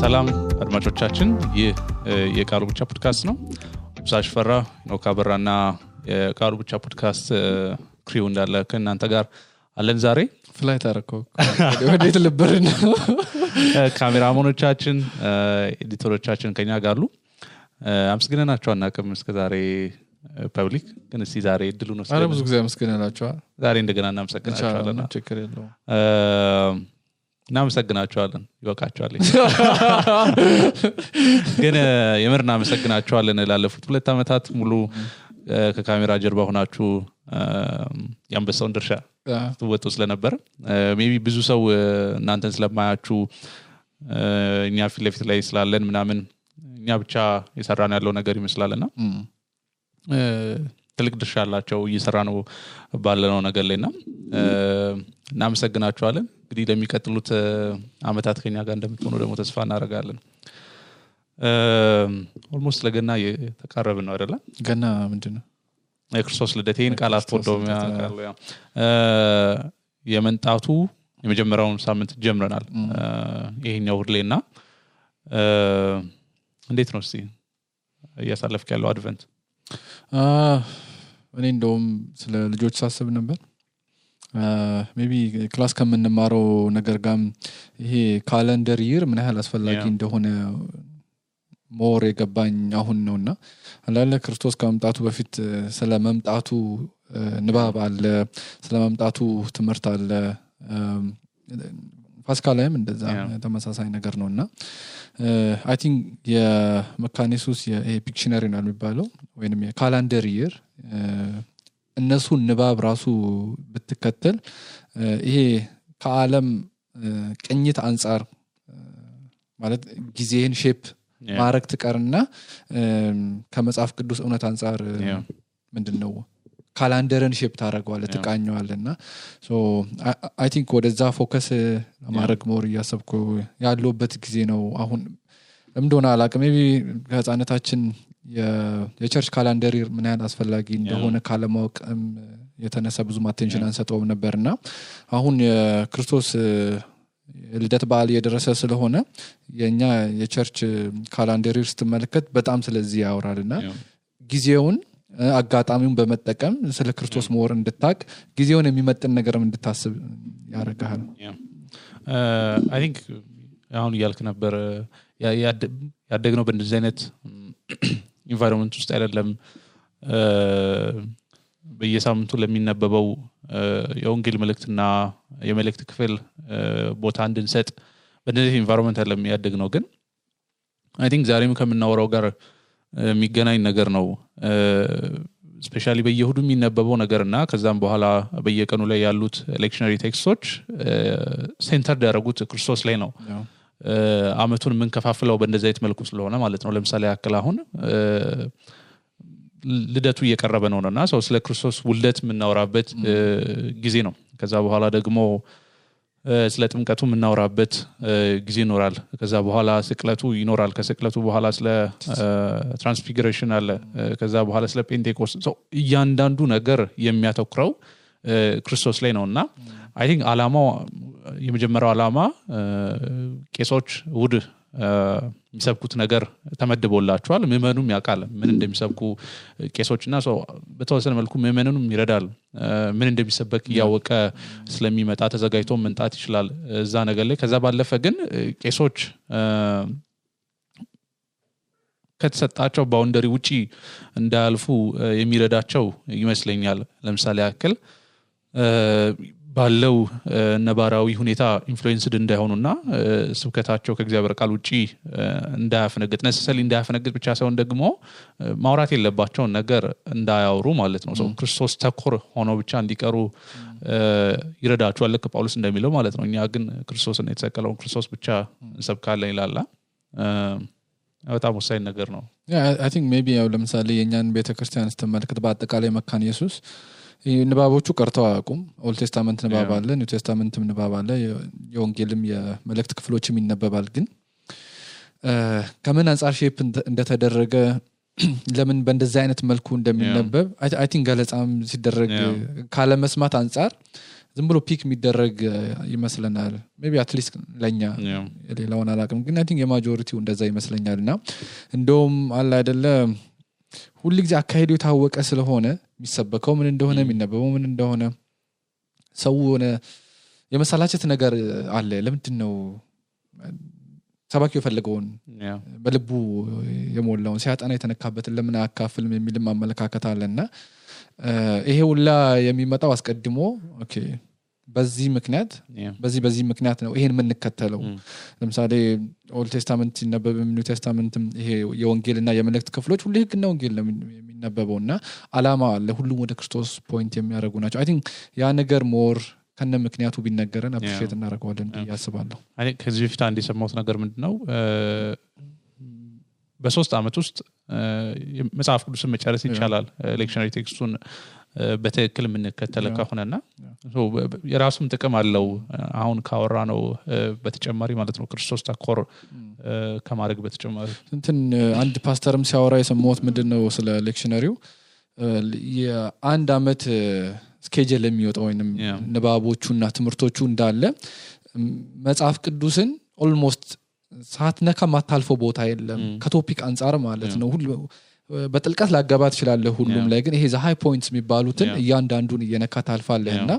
ሰላም አድማጮቻችን ይህ የቃሉ ብቻ ፖድካስት ነው። ብሳሽ ፈራ ነው ካበራና የቃሉ ብቻ ፖድካስት ክሪው እንዳለ ከእናንተ ጋር አለን። ዛሬ ፍላይት አረከው ወዴት ልበርና ካሜራማኖቻችን ኤዲተሮቻችን ከኛ ጋር አሉ። አመስግነናቸው አናውቅም እስከ ዛሬ ፐብሊክ ግን እስቲ ዛሬ እድሉ ነው። አረ ብዙ ጊዜ አመስግነናቸው ዛሬ እንደገና እናመሰግናቸዋለን። ችግር የለውም። እናመሰግናቸዋለን ይወቃቸዋል ግን የምር እናመሰግናቸዋለን። ላለፉት 2 አመታት ሙሉ ከካሜራ ጀርባ ሆናችሁ ያንበሳውን ድርሻ ትወጡ ስለነበር ሜቢ ብዙ ሰው እናንተን ስለማያችሁ እኛ ፊት ለፊት ላይ ስላለን ምናምን እኛ ብቻ የሰራን ያለው ነገር ይመስላልና ትልቅ ድርሻ አላቸው እየሰራ ነው ባለነው ነገር ላይና እናመሰግናቸዋለን። እንግዲህ ለሚቀጥሉት አመታት ከኛ ጋር እንደምትሆኑ ደግሞ ተስፋ እናደርጋለን። ኦልሞስት ለገና የተቃረበ ነው አይደለ? ገና ምንድነው የክርስቶስ ልደቴን ቃላት ፎዶሚያ ካለው የመንጣቱ የመጀመሪያውን ሳምንት ጀምረናል ይሄኛው ሁሌና እንዴት ነው እስቲ እያሳለፍክ ያለው አድቨንት? እኔ እንደውም ስለ ልጆች ሳስብ ነበር ሜቢ ክላስ ከምንማረው ነገር ጋር ይሄ ካሌንደር ይር ምን ያህል አስፈላጊ እንደሆነ ሞር የገባኝ አሁን ነውና አላለ ክርስቶስ ከመምጣቱ በፊት ስለመምጣቱ ንባብ አለ፣ ስለመምጣቱ ትምህርት አለ። ፋሲካ ላይም እንደዛ ተመሳሳይ ነገር ነውና አይ ቲንክ የመካኒሱስ የፒክሽነሪ ነው የሚባለው ወይንም የካሌንደር ይር እነሱ ንባብ ራሱ ብትከተል ይሄ ከዓለም ቅኝት አንፃር ማለት ጊዜን ሼፕ ማረክ ትቀርና ከመጽሐፍ ቅዱስ እውነት አንፃር ምንድነው ካሌንደርን ሼፕ ታረጋዋለህ ትቃኘዋለህና ሶ አይ ቲንክ ወደዛ ፎከስ ማድረግ ሞር ያሰብኩ ያለውበት ጊዜ ነው አሁን። እንደሆነ አላውቅም ሜቢ ከህፃነታችን የቸርች ካሌንደር ምን ያህል አስፈላጊ እንደሆነ ካለማወቅም የተነሳ ብዙ አቴንሽን አንሰጠውም ነበርና አሁን የክርስቶስ ልደት በዓል እየደረሰ ስለሆነ የኛ የቸርች ካሌንደር ስትመለከት በጣም ስለዚህ ያወራልና ጊዜውን አጋጣሚውን በመጠቀም ስለ ክርስቶስ ሞር እንድታቅ ጊዜውን የሚመጥን ነገርም እንድታስብ ያደርጋል። አይ ቲንክ አሁን ያልክ ነበር ያደግነው በእንደዚህ አይነት ኢንቫይሮንመንት ውስጥ አይደለም። በየሳምንቱ ለሚነበበው የወንጌል መልእክትና የመልእክት ክፍል ቦታ እንድንሰጥ በእንደዚህ ኢንቫይሮንመንት አይደለም ያደግነው። ግን አይ ቲንክ ዛሬም ከምናወራው ጋር የሚገናኝ ነገር ነው። ስፔሻሊ በየሁዱ የሚነበበው ነገርና ከዛም በኋላ በየቀኑ ላይ ያሉት ሌክቸነሪ ቴክስቶች ሴንተር ያደረጉት ክርስቶስ ላይ ነው። አመቱን የምንከፋፍለው በእንደዚህ አይነት መልኩ ስለሆነ ማለት ነው። ለምሳሌ ያክል አሁን ልደቱ እየቀረበ ነውና ሰው ስለ ክርስቶስ ውልደት የምናወራበት ጊዜ ነው። ከዛ በኋላ ደግሞ ስለ ጥምቀቱ የምናወራበት ጊዜ ይኖራል። ከዛ በኋላ ስቅለቱ ይኖራል። ከስቅለቱ በኋላ ስለ ትራንስፊግሬሽን አለ። ከዛ በኋላ ስለ ፔንቴኮስት ሰው እያንዳንዱ ነገር የሚያተኩረው ክርስቶስ ላይ ነውና አይ ቲንክ አላማው የመጀመሪያው አላማ ቄሶች ውድ የሚሰብኩት ነገር ተመድቦላቸዋል። ምእመኑም ያውቃል ምን እንደሚሰብኩ ቄሶችና ሰው በተወሰነ መልኩ ምእመኑንም ይረዳል። ምን እንደሚሰበክ ያወቀ ስለሚመጣ ተዘጋጅቶ መንጣት ይችላል እዛ ነገር ላይ። ከዛ ባለፈ ግን ቄሶች ከተሰጣቸው ባውንደሪ ውጪ እንዳያልፉ የሚረዳቸው ይመስለኛል። ለምሳሌ ያክል ባለው ነባራዊ ሁኔታ ኢንፍሉዌንስድ እንዳይሆኑና ስብከታቸው ከእግዚአብሔር ቃል ውጪ እንዳያፈነግጥ ነሰሰሊ እንዳያፈነግጥ ብቻ ሳይሆን ደግሞ ማውራት የለባቸው ነገር እንዳያወሩ ማለት ነው። ሰው ክርስቶስ ተኮር ሆኖ ብቻ እንዲቀሩ ይረዳቸዋል ልክ ጳውሎስ እንደሚለው ማለት ነው። እኛ ግን ክርስቶስን የተሰቀለውን ክርስቶስ ብቻ እንሰብካለን ይላል። በጣም ወሳኝ ነገር ነው። አይ ቲንክ ሜቢ ያው ለምሳሌ የኛን ቤተክርስቲያን ስትመለከት በአጠቃላይ መካነ ኢየሱስ ንባቦቹ ቀርተው አያውቁም። ኦልድ ቴስታመንት ንባብ አለ፣ ኒው ቴስታመንትም ንባብ አለ፣ የወንጌልም የመልእክት ክፍሎችም ይነበባል። ግን ከምን አንፃር ሼፕ እንደተደረገ ለምን በእንደዚህ አይነት መልኩ እንደሚነበብ አይ ቲንክ ገለጻም ሲደረግ ካለ መስማት አንፃር ዝም ብሎ ፒክ የሚደረግ ይመስለናል ሜቢ አትሊስት ለኛ ሌላውን አላውቅም ግን አይ ቲንክ የማጆሪቲው እንደዛ ይመስለኛልና እንደውም አለ አይደለ ሁሉ ጊዜ አካሄዱ የታወቀ ስለሆነ የሚሰበከው ምን እንደሆነ የሚነበበው ምን እንደሆነ ሰው ሆነ የመሰላቸት ነገር አለ ለምንድነው ሰባኪው የፈለገውን በልቡ የሞላውን ሲያጠና የተነካበትን ለምን አካፍልም የሚልም አመለካከት አለና ይሄ ሁላ የሚመጣው አስቀድሞ ኦኬ በዚህ ምክንያት በዚህ ምክንያት ነው ይሄን የምንከተለው ለምሳሌ ኦልድ ቴስታመንት ሲነበብም ኒው ቴስታመንትም ይሄ የወንጌልና የመልእክት ክፍሎች ሁሉ ህግና ወንጌል ነው የሚነበበውና አላማ ለሁሉም ወደ ክርስቶስ ፖይንት የሚያደርጉ ናቸው አይ ቲንክ ያ ነገር ሞር ከነ ምክንያቱ ቢነገረን አፕሪሺየት እናደርገዋለን ያስባለሁ አይ ከዚህ በፊት አንድ የሰማሁት ነገር ምንድነው በ3 አመት ውስጥ መጽሐፍ ቅዱስን መጨረስ ይቻላል ሌክቸነሪ ቴክስቱን በትክክል የምንከተል ከሆነና የራሱም ጥቅም አለው አሁን ካወራ ነው በተጨማሪ ማለት ነው ክርስቶስ ተኮር ከማድረግ በተጨማሪ እንትን አንድ ፓስተርም ሲያወራ የሰማሁት ምንድነው ስለ ሌክቸነሪው የአንድ አመት ስኬጁል የሚወጣው ወይንም ንባቦቹና ትምህርቶቹ እንዳለ መጽሐፍ ቅዱስን ኦልሞስት ሳትነካ ማታልፈው ቦታ የለም ከቶፒክ አንፃር ማለት ነው ሁሉ በጥልቀት ላጋባት ይችላል ሁሉም ላይ ግን ይሄ ዘ ሃይ ፖይንትስ የሚባሉትን እያንዳንዱን እየነካ ታልፋለህና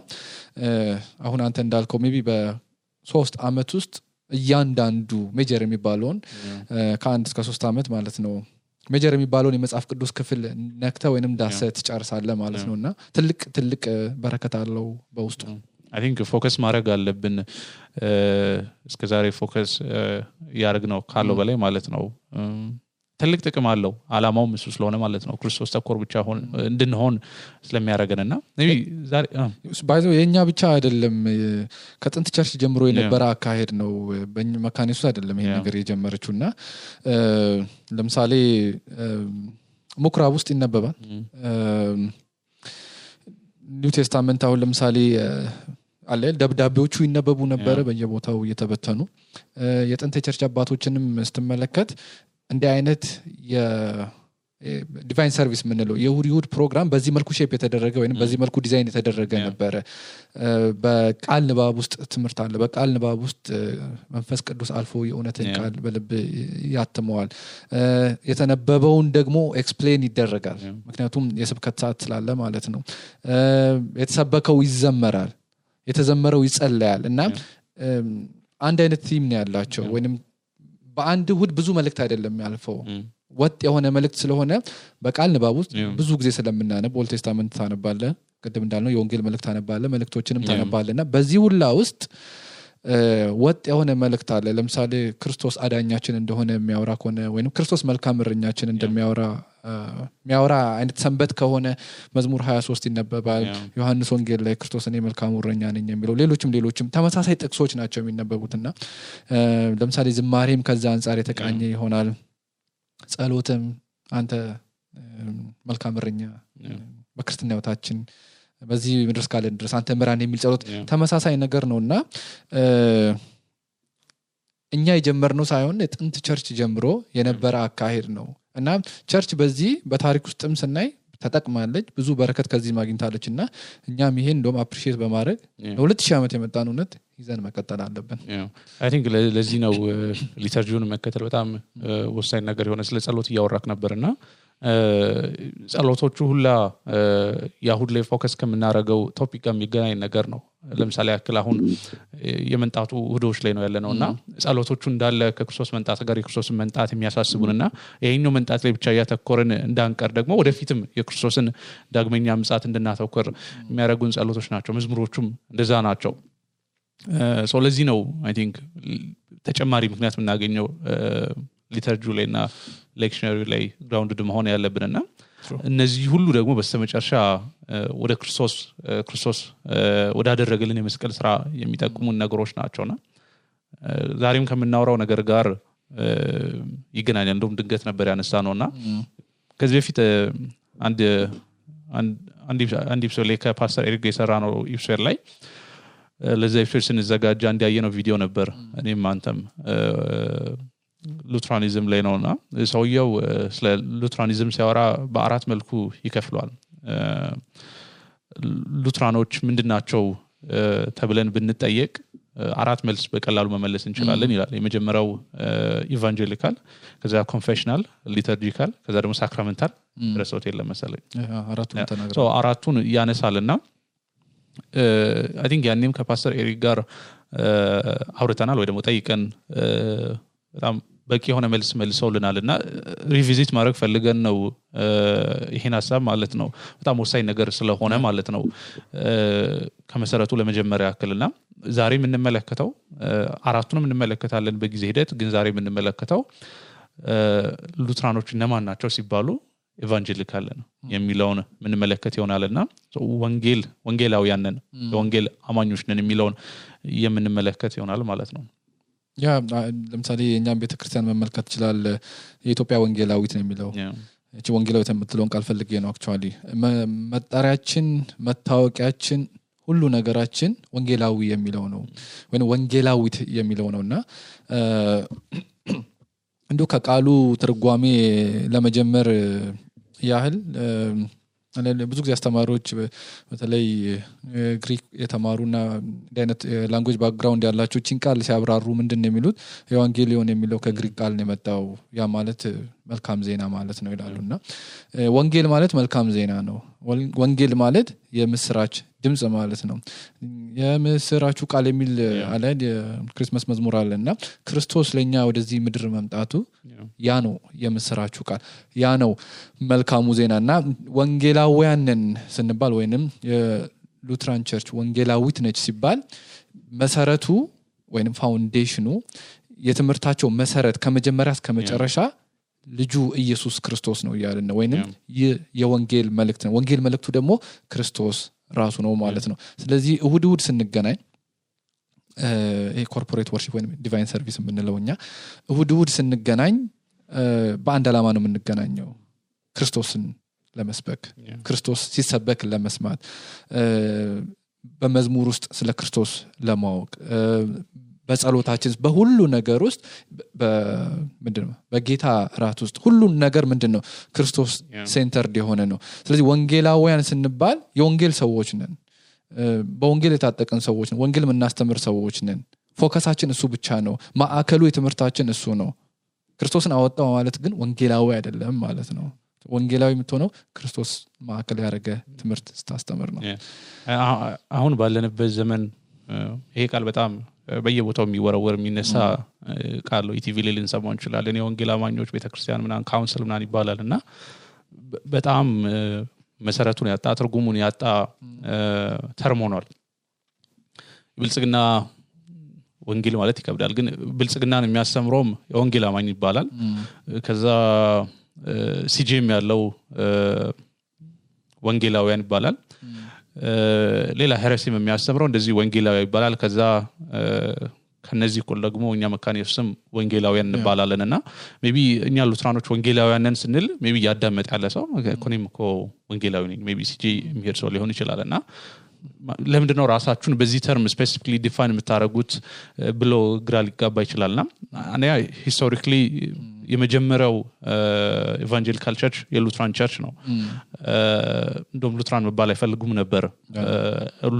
አሁን አንተ እንዳልከው ሜቢ በ3 አመት ውስጥ እያንዳንዱ ሜጀር የሚባለውን ከ1 እስከ 3 አመት ማለት ነው ሜጀር የሚባለውን የመጽሐፍ ቅዱስ ክፍል ነክተ ወይንም ዳሰት ጨርሳለ ማለት ነውና ትልቅ በረከት አለው በውስጡ I think ፎከስ ማድረግ አለብን እስከዛሬ ፎከስ ያርግነው ካለው በላይ ማለት ነው ትልቅ ጥቅም አለው አላማውም እሱ ስለሆነ ማለት ነው ክርስቶስ ተኮር ብቻ እንድንሆን ስለሚያረጋግጥና maybe ዛሬ ባይዘው የኛ ብቻ አይደለም ከጥንት ቸርች ጀምሮ የነበረ አካሄድ ነው በመካኒሱ አይደለም ይሄ ነገር የጀመረችውና ለምሳሌ ምኩራብ ውስጥ ይነበባል ኒው ቴስታመንት አሁን ለምሳሌ አለ ደብዳቤዎቹ ይነበቡ ነበር በየቦታው እየተበተኑ የጥንት ቸርች አባቶችንም ስትመለከት እንደ አይነት የዲቫይን ሰርቪስ ምንለው የሁድ ፕሮግራም በዚህ መልኩ ሼፕ የተደረገ ወይንም በዚህ መልኩ ዲዛይን የተደረገ ነበር በቃል ንባብ ውስጥ ትምህርት አለ በቃል ንባብ ውስጥ መንፈስ ቅዱስ አልፎ የእውነትን ቃል በልብ ያትመዋል የተነበበውን ደግሞ ኤክስፕሌን ይደረጋል ምክንያቱም የስብከት ሰዓት ስላለ ማለት ነው የተሰበከው ይዘመራል የተዘመረው ይጸለያል እና አንድ አይነት ቲም ነው ያላቸው ወይንም በአንድ ሁድ ብዙ መልእክት አይደለም ያልፈው ወጥ የሆነ መልእክት ስለሆነ በቃል ንባብ ውስጥ ብዙ ጊዜ ስለምናነብ ኦልድ ቴስታመንት ታነባለ ቅድም እንዳልነው የወንጌል መልእክት ታነባለ መልእክቶችንም ታነባለና በዚህ ሁላ ውስጥ ወጥ የሆነ መልእክት አለ ለምሳሌ ክርስቶስ አዳኛችን እንደሆነ የሚያወራ ከሆነ ወይንም ክርስቶስ መልካም እረኛችን እንደሚያወራ አይነት ሰንበት ከሆነ መዝሙር 23 ይነበባል ዮሐንስ ወንጌል ላይ ክርስቶስ እኔ መልካም እረኛ ነኝ የሚለው ሌሎችም ተመሳሳይ ጥቅሶች ናቸው የሚነበቡትና ለምሳሌ ዝማሬም ከዛ አንፃር የተቃኘ ይሆናል ጸሎትም አንተ መልካም እረኛ በክርስትና ህይወታችን በዚህ ምድር እስካለን ድረስ አንተ ምራን የሚል ጸሎት ተመሳሳይ ነገር ነውና እኛ የጀመርነው ሳይሆን የጥንት ቸርች ጀምሮ የነበረ አካሄድ ነው እና ቸርች በዚህ በታሪክ ውስጥም ስናይ ተጠቅማለች ብዙ በረከት ከዚህ ማግኝታለችና እኛም ይሄን እንደውም አፕሪሺየት በማድረግ ለ2000 ዓመት የመጣን እውነት ይዘን መቀጠል አለብን አይ ቲንክ ለዚህ ነው ሊተርጂውን መከተል በጣም ወሳኝ ነገር የሆነ ስለ ጸሎት እያወራክ ነበርና ጸሎቶቹ ሁላ ያሁድ ላይ ፎከስ ከምናረገው ቶፒክ ጋር የሚገናኝ ነገር ነው ለምሳሌ ያክል አሁን የመንጣቱ እሁዶች ላይ ነው ያለነውና ጸሎቶቹ እንዳለ ከክርስቶስ መንጣት ጋር የክርስቶስን መንጣት የሚያሳስቡንና ይሄኛው መንጣት ላይ ብቻ ያተኮረን እንዳንቀር ደግሞ ወደፊትም የክርስቶስን ዳግመኛ ምጽአት እንድናተኮር የሚያረጉን ጸሎቶች ናቸው መዝሙሮቹም እንደዛ ናቸው ለዚህ ነው አይ ቲንክ ተጨማሪ ምክንያት የምናገኘው ሊተርጂው ላይና ሌክቸነሪ ላይ ግራውንድድ መሆን ያለብንና እነዚህ ሁሉ ደግሞ በስተመጨረሻ ወደ ክርስቶስ ወዳደረገልን የመስቀል ስራ የሚጠቁሙን ነገሮች ናቸውና ዛሬም ከምናወራው ነገር ጋር ይገናኛል እንደውም ድንገት ነበር ያነሳነውና ከዚህ በፊት አንድ ኢፕሶድ ላይ ከፓስተር ኤሪክ የሰራ ነው ኢፕሶድ ላይ ለዛ ኢፕሶድ ስንዘጋጅ አንድ ያየነው ቪዲዮ ነበር እኔም አንተም ሉትራኒዝም ላይ ነውና ሰውየው ስለ ሉትራኒዝም ሲያወራ በአራት መልኩ ይከፍሏል ሉትራኖች ምንድናቸው ተብለን ብንጠየቅ አራት መልስ በቀላሉ መመለስ እንችላለን ይላል የመጀመሪያው ኢቫንጀሊካል ከዛ ኮንፌሽናል ሊተርጂካል ከዛ ደግሞ ሳክራመንታል ረሶት የለም መሰለኝ አራቱን ተናግረው አራቱን ያነሳልና አይ ቲንክ ያኔም ከፓስተር ኤሪክ ጋር አውርተናል ወይ ደግሞ ጠይቀን በጣም በቂ የሆነ መልስ መልሰውልናልና ሪቪዚት ማድረግ ፈልገን ነው ይሄን ሐሳብ ማለት ነው በጣም ወሳኝ ነገር ስለሆነ ማለት ነው ከመሰረቱ ለመጀመሪያ ያክልና ዛሬ የምንመለከተው አራቱንም እንመለከታለን በጊዜ ሂደት ግን ዛሬ የምንመለከተው ሉትራኖች እነማን ናቸው ሲባሉ ኢቫንጀሊካል ነው የሚለውን የምንመለከት ይሆናልና ወንጌላውያን ነን የወንጌል አማኞች ነን የሚለውን የምንመለከት ይሆናል ማለት ነው ያ ለምሳሌ የኛም ቤተክርስቲያን መመልከት ይችላል የኢትዮጵያ ወንጌላዊት ነው የሚለው እቺ ወንጌላዊት የምትለውን ቃል ፈልጌ ነው አክቹአሊ መጣሪያችን መታወቂያችን ሁሉ ነገራችን ወንጌላዊ የሚለው ነው ወይ ወንጌላዊት የሚለው ነውና እንዶ ከቃሉ ትርጓሜ ለመጀመር ያህል ብዙ ጊዜ አስተማሪዎች በተለይ ግሪክ የተማሩና አይነት ላንጉዌጅ ባክግራውንድ ያላቸው ቺን ቃል ሲያብራሩ ምንድነው የሚሉት ኤቫንጌሊዮን የሚለው ከግሪክ ቃል ነው የመጣው ያ ማለት መልካም ዜና ማለት ነው ይላሉና ወንጌል ማለት መልካም ዜና ነው ወንጌል ማለት የምስራች ድምጽ ማለት ነው የምስራቹ ቃል የሚል አለ የክሪስማስ መዝሙር አለና ክርስቶስ ለኛ ወደዚህ ምድር መምጣቱ ያ ነው የምስራቹ ቃል ያ ነው መልካሙ ዜናና ወንጌላውያንን ስንባል ወይንም የሉትራን ቸርች ወንጌላዊት ነች ሲባል መሰረቱ ወይንም ፋውንዴሽኑ የትምህርታቸው መሰረት ከመጀመሪያ እስከ መጨረሻ ልጁ ኢየሱስ ክርስቶስ ነው ያለና ወይንም የወንጌል መልእክት ነው ወንጌል መልእክቱ ደግሞ ክርስቶስ ራሱ ነው ማለት ነው ስለዚህ እሁድ ስንገናኝ ኮርፖሬት ወርሺፕ ወይንም ዲቫይን ሰርቪስ የምንለውኛ እሁድ ስንገናኝ በአንድ ዓላማ ነው የምንገናኘው ክርስቶስን ለመስበክ ክርስቶስ ሲሰበክ ለመስማት በመዝሙር ውስጥ ስለ ክርስቶስ ለማወቅ በጸሎታችን በሁሉ ነገር ውስጥ ምንድነው በጌታ ራት ውስጥ ሁሉ ነገር ምንድነው ክርስቶስ ሴንተርድ የሆነ ነው ስለዚህ ወንጌላውያን ስንባል የወንጌል ሰዎች ነን በወንጌል የታጠቀን ሰዎች ነን ወንጌል የምናስተምር ሰዎች ነን ፎከሳችን እሱ ብቻ ነው ማዕከሉ የትምህርታችን እሱ ነው ክርስቶስን አወጣው ማለት ግን ወንጌላዊ አይደለም ማለት ነው ወንጌላዊ የምትሆነው ክርስቶስ ማዕከል ያደረገ ትምህርት ስታስተምር ነው አሁን ባለንበት ዘመን ይሄ ቃል በጣም በየቦታው የሚወረወር የሚነሳ ቃል ነው ኢቲቪ ላይ ልንሰማው እንችላለን የወንጌል አማኞች ቤተክርስቲያን ምናን ካውንስል ምናን ይባላልና በጣም መሰረቱን ያጣ ትርጉሙን ያጣ ተርም ሆኗል ብልጽግና ወንጌል ማለት ይከብዳል ግን ብልጽግናን የሚያስተምረውም የወንጌል አማኝ ይባላል ከዛ ሲጂኤም ያለው ወንጌላውያን ይባላል ሌላ ሄረሲም የሚያስተምረው እንደዚህ ወንጌላዊ ይባላል ከዛ ከነዚህ ሁሉ ደግሞ እኛ መካነ ኢየሱስም ወንጌላውያን እንባላለንና ሜቢ እኛ ሉትራኖች ወንጌላውያንን ስንል ሜቢ ያዳመጥ ያለ ሰው ኮኔም እኮ ወንጌላዊ ነኝ ሜቢ ሲጂ የሚሄድ ሰው ሊሆን ይችላልና ለምንድነው ራሳችሁን በዚህ ተርም ስፔሲፊካሊ ዲፋይን የምታረጉት ብሎ ግራ ሊጋባ ይችላልና እኔ ሂስቶሪካሊ የመጀመሪያው ኢቫንጀሊካል ቸርች የሉትራን ቸርች ነው እንደውም ሉትራን መባል አይፈልጉም ነበር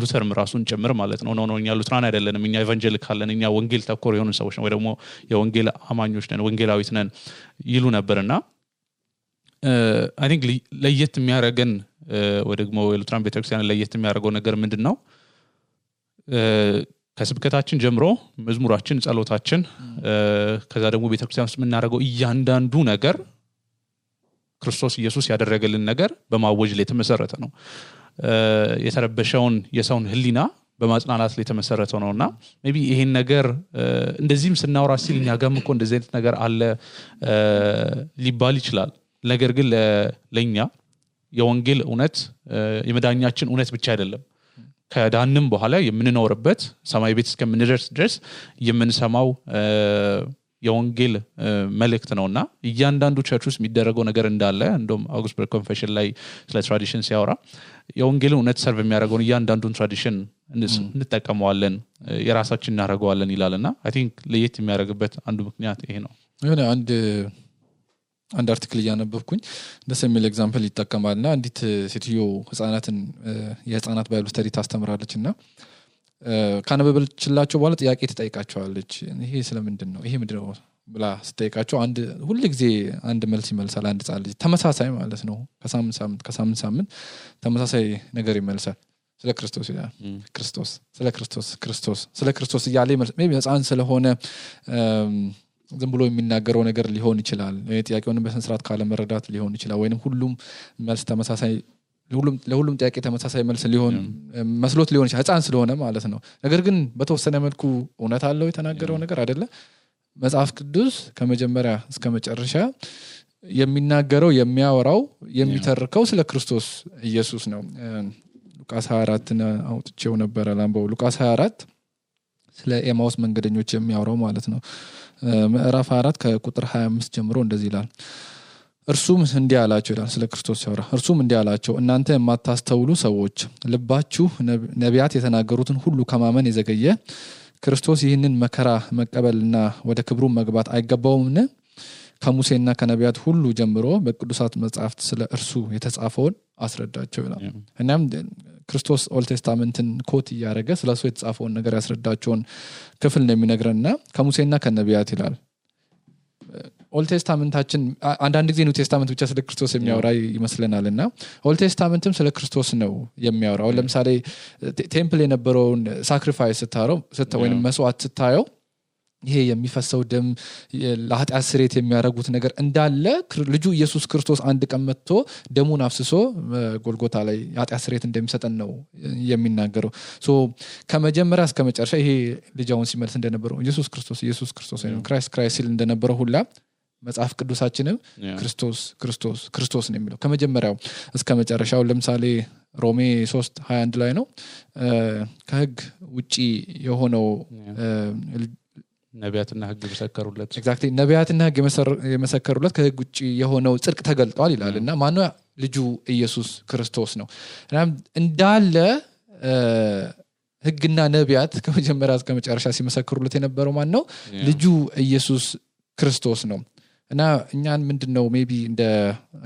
ሉተርም ራሱን ጨምር ማለት ነው ነው እኛ ሉትራን አይደለንም እኛ ኢቫንጀሊካል ነን እኛ ወንጌል ተኮር የሆኑ ሰዎች ነው ወይ ደግሞ የወንጌል አማኞች ነን ወንጌላዊት ነን ይሉ ነበርና አይ ቲንክ ለየት የሚያረገን ወይ ደግሞ የሉትራን ቤተክርስቲያን ለየት የሚያደርገው ነገር ምንድነው ከስብከታችን ጀምሮ መዝሙራችን ጸሎታችን ከዛ ደግሞ ቤተክርስቲያን ውስጥ የምናደርገው እያንዳንዱ ነገር ክርስቶስ ኢየሱስ ያደረገልን ነገር በማወጅ ላይ የተመሰረተ ነው የተረበሸውን የሰውን ህሊና በማጽናናት ላይ የተመሰረተ ነውና ሜቢ ይሄን ነገር እንደዚህም ስናወራ ሲል እኛ ጋርም እኮ እንደዚህ አይነት ነገር አለ ሊባል ይችላል ነገር ግን ለኛ የወንጌል እውነት የመዳኛችን እውነት ብቻ አይደለም ከዳንም በኋላ የምንኖርበት ሰማይ ቤት እስከምንደርስ ድረስ የምንሰማው የወንጌል መልእክት ነውና እያንዳንዱ ቸርች ውስጥ የሚደረገው ነገር እንዳለ እንደውም አውግስበርግ ኮንፌሽን ላይ ስለ ትራዲሽን ሲያወራ የወንጌል እውነት ሰርቭ የሚያደርገውን እያንዳንዱን ትራዲሽን እንጠቀመዋለን የራሳችን እናደርገዋለን ይላልና አይ ቲንክ ለየት የሚያደርግበት አንዱ ምክንያት ይሄ ነው የሆነ አንድ አርቲክል ያነበብኩኝ ደስ የሚል ኤግዛምፕል ይጠቀማልና አንዲት ሴትዮ ህፃናትን የህፃናት ባይብል ስተዲ ታስተምራለችና ካነበበችላቸው በኋላ ጥያቄ ትጠይቃቸዋለች ይሄ ስለምንድን ነው ይሄ ምንድነው ብላ ስትጠይቃቸው አንድ ሁሉ ጊዜ አንድ መልስ ይመልሳል አንድ ጻል ልጅ ተመሳሳይ ማለት ነው ከሳምንት ተመሳሳይ ነገር ይመልሳል ስለ ክርስቶስ ይላል ክርስቶስ ስለ ክርስቶስ እያለ ሜቢ ህፃን ስለሆነ ዝም ብሎ የሚናገረው ነገር ሊሆን ይችላል ጥያቄውን በስነ ስርዓት ካለ መረዳት ሊሆን ይችላል ወይንም ሁሉም መልስ ተመሳሳይ ለሁሉም ጥያቄ ተመሳሳይ መልስ ሊሆን መስሎት ሊሆን ይችላል ህፃን ስለሆነ ማለት ነው ነገር ግን በተወሰነ መልኩ እውነት አለው የተናገረው ነገር አይደለ መጽሐፍ ቅዱስ ከመጀመሪያ እስከ መጨረሻ የሚናገረው የሚያወራው የሚተርከው ስለ ክርስቶስ ኢየሱስ ነው ሉቃስ 24 አውጥቼው ነበር ላምባው ሉቃስ 24 ስለ ኤማውስ መንገደኞች የሚያወራው ማለት ነው ምዕራፍ 4 ከቁጥር 25 ጀምሮ እንደዚህ ይላል እርሱም እንዲህ አላቸው ይላል ስለ ክርስቶስ ሲያወራ እርሱም እንዲህ አላቸው እናንተ የማታስተውሉ ሰዎች ልባችሁ ነቢያት የተናገሩትን ሁሉ ከማመን የዘገየ ክርስቶስ ይህንን መከራ መቀበልና ወደ ክብሩ መግባት አይገባውምን ከሙሴና ከነቢያት ሁሉ ጀምሮ በቅዱሳት መጻሕፍት ስለ እርሱ የተጻፈውን አስረዳቸው ይላል እናም ክርስቶስ ኦልድ ቴስታመንትን ኮት ያደረገ ስለሱ የተጻፈውን ነገር ያስረዳቸውን ክፍል ነው የሚነግረንና ከሙሴና ከነቢያት ይላል ኦልድ ቴስታመንታችን አንዳንድ ጊዜ ኒው ቴስታመንት ብቻ ስለ ክርስቶስ የሚያወራ ይመስለናልና ኦልድ ቴስታመንትም ስለ ክርስቶስ ነው የሚያወራው ለምሳሌ ቴምፕል የነበረውን ሳክሪፋይስ ስታረው ወይንም መስዋዕት ስታየው ይሄ የሚፈሰው ደም ለኃጢአት ስርየት የሚያደርጉት ነገር እንዳለ ልጁ ኢየሱስ ክርስቶስ አንድ ቀን መጥቶ ደሙን አፍስሶ ጎልጎታ ላይ ኃጢአት ስርየት እንደሚሰጠን ነው የሚናገረው ሶ ከመጀመሪያ እስከ መጨረሻ ይሄ ልጅውን ሲመልስ እንደነበረው ኢየሱስ ክርስቶስ ወይም ክራይስት ሲል እንደነበረው ሁላ መጽሐፍ ቅዱሳችንም ክርስቶስ ነው የሚለው ከመጀመሪያው እስከ መጨረሻው ለምሳሌ ሮሜ 3:21 ላይ ነው ከህግ ውጪ የሆነው ነቢያትና ህግ መሰከሩለት ኤግዛክትሊ ነቢያትና ህግ የመሰከሩለት ከህግ ውጪ የሆነው ጽድቅ ተገልጧል ይላልና ማነው ልጁ ኢየሱስ ክርስቶስ ነው እንዳለ ህግና ነቢያት ከመጀመሪያ እስከ መጨረሻ ሲመሰክሩለት የነበረው ማን ነው ልጁ ኢየሱስ ክርስቶስ ነው እና እኛን ምንድነው ሜቢ እንደ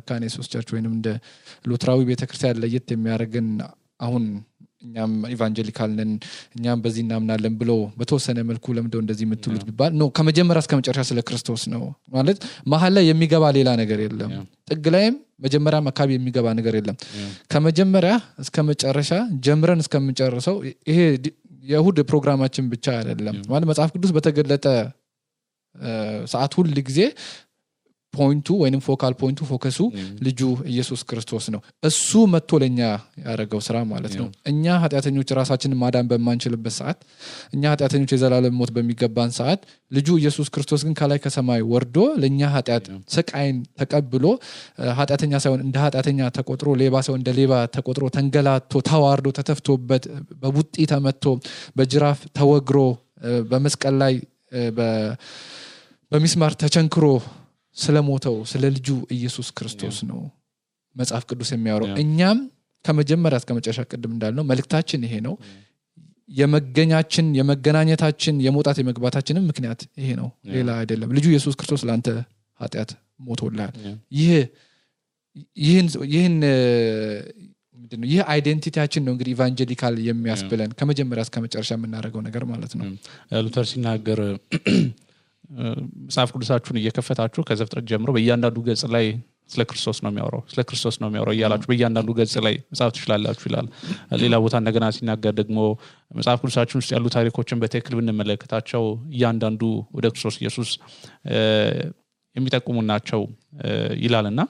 ካኔሶስ ቸርች ወይንም እንደ ሉትራዊ ቤተክርስቲያን ለየት የሚያደርገን አሁን እኛም ኢቫንጀሊካል ነን እኛም በዚህ እናምናለን ብሎ በተወሰነ መልኩ ለምንድነው እንደዚህ የምትሉት ቢባል ነው ከመጀመሪያ እስከ መጨረሻ ስለ ክርስቶስ ነው ማለት መሐል ላይ የሚገባ ሌላ ነገር የለም ጥግ ላይም መጀመሪያ አካባቢ የሚገባ ነገር የለም ከመጀመሪያ እስከ መጨረሻ ጀምረን እስከምንጨርሰው ይሄ የእሁድ ፕሮግራማችን ብቻ አይደለም ማለት መጽሐፍ ቅዱስ በተገለጠ ሰዓት ሁሉ ጊዜ ፖይንቱ ወይንም ፎካል ፖይንቱ ፎከሱ ልጁ ኢየሱስ ክርስቶስ ነው እሱ መጥቶ ለኛ ያደረገው ስራ ማለት ነው እኛ ኃጢአተኞች ራሳችንን ማዳን በማንችልበት ሰዓት እኛ ኃጢአተኞች የዘላለም ሞት በሚገባን ሰዓት ልጁ ኢየሱስ ክርስቶስ ግን ከላይ ከሰማይ ወርዶ ለኛ ኃጢአት ስቃይን ተቀብሎ ኃጢአተኛ ሳይሆን እንደ ኃጢአተኛ ተቆጥሮ ሌባ ሳይሆን እንደ ሌባ ተቆጥሮ ተንገላቶ ተዋርዶ ተተፍቶበት በቡጢ ተመቶ በጅራፍ ተወግሮ በመስቀል ላይ በሚስማር ተቸንክሮ ስለሞተው ስለ ልጁ ኢየሱስ ክርስቶስ ነው መጽሐፍ ቅዱስ የሚያወራው እኛም ከመጀመሪያ እስከ መጨረሻ ቅድም እንዳልነው መልእክታችን ይሄ ነው የመገናኘታችን የመውጣት የመግባታችንም ምክንያት ይሄ ነው ሌላ አይደለም ልጁ ኢየሱስ ክርስቶስ ለአንተ ኃጢአት ሞቶልሃል ይሄን ምንድነው ይሄ አይዴንቲቲያችን ነው እንግዲህ ኢቫንጀሊካል የሚያስብለን ከመጀመሪያ እስከ መጨረሻ የምናደርገው ነገር ማለት ነው ሉተር ሲናገር መጽሐፍ ቅዱሳችሁን እየከፈታችሁ ከዘፍጥረት ጀምሮ በእያንዳንዱ ገጽ ላይ ስለ ክርስቶስ ነው የሚያወራው እያላችሁ በእያንዳንዱ ገጽ ላይ መጽሐፍ ትችላላችሁ ይላል ሌላ ቦታ እንደገና ሲናገር ደግሞ መጽሐፍ ቅዱሳችን ውስጥ ያሉ ታሪኮችን በትክክል ብንመለከታቸው እያንዳንዱ ወደ ክርስቶስ ኢየሱስ የሚጠቁሙ ናቸው ይላልና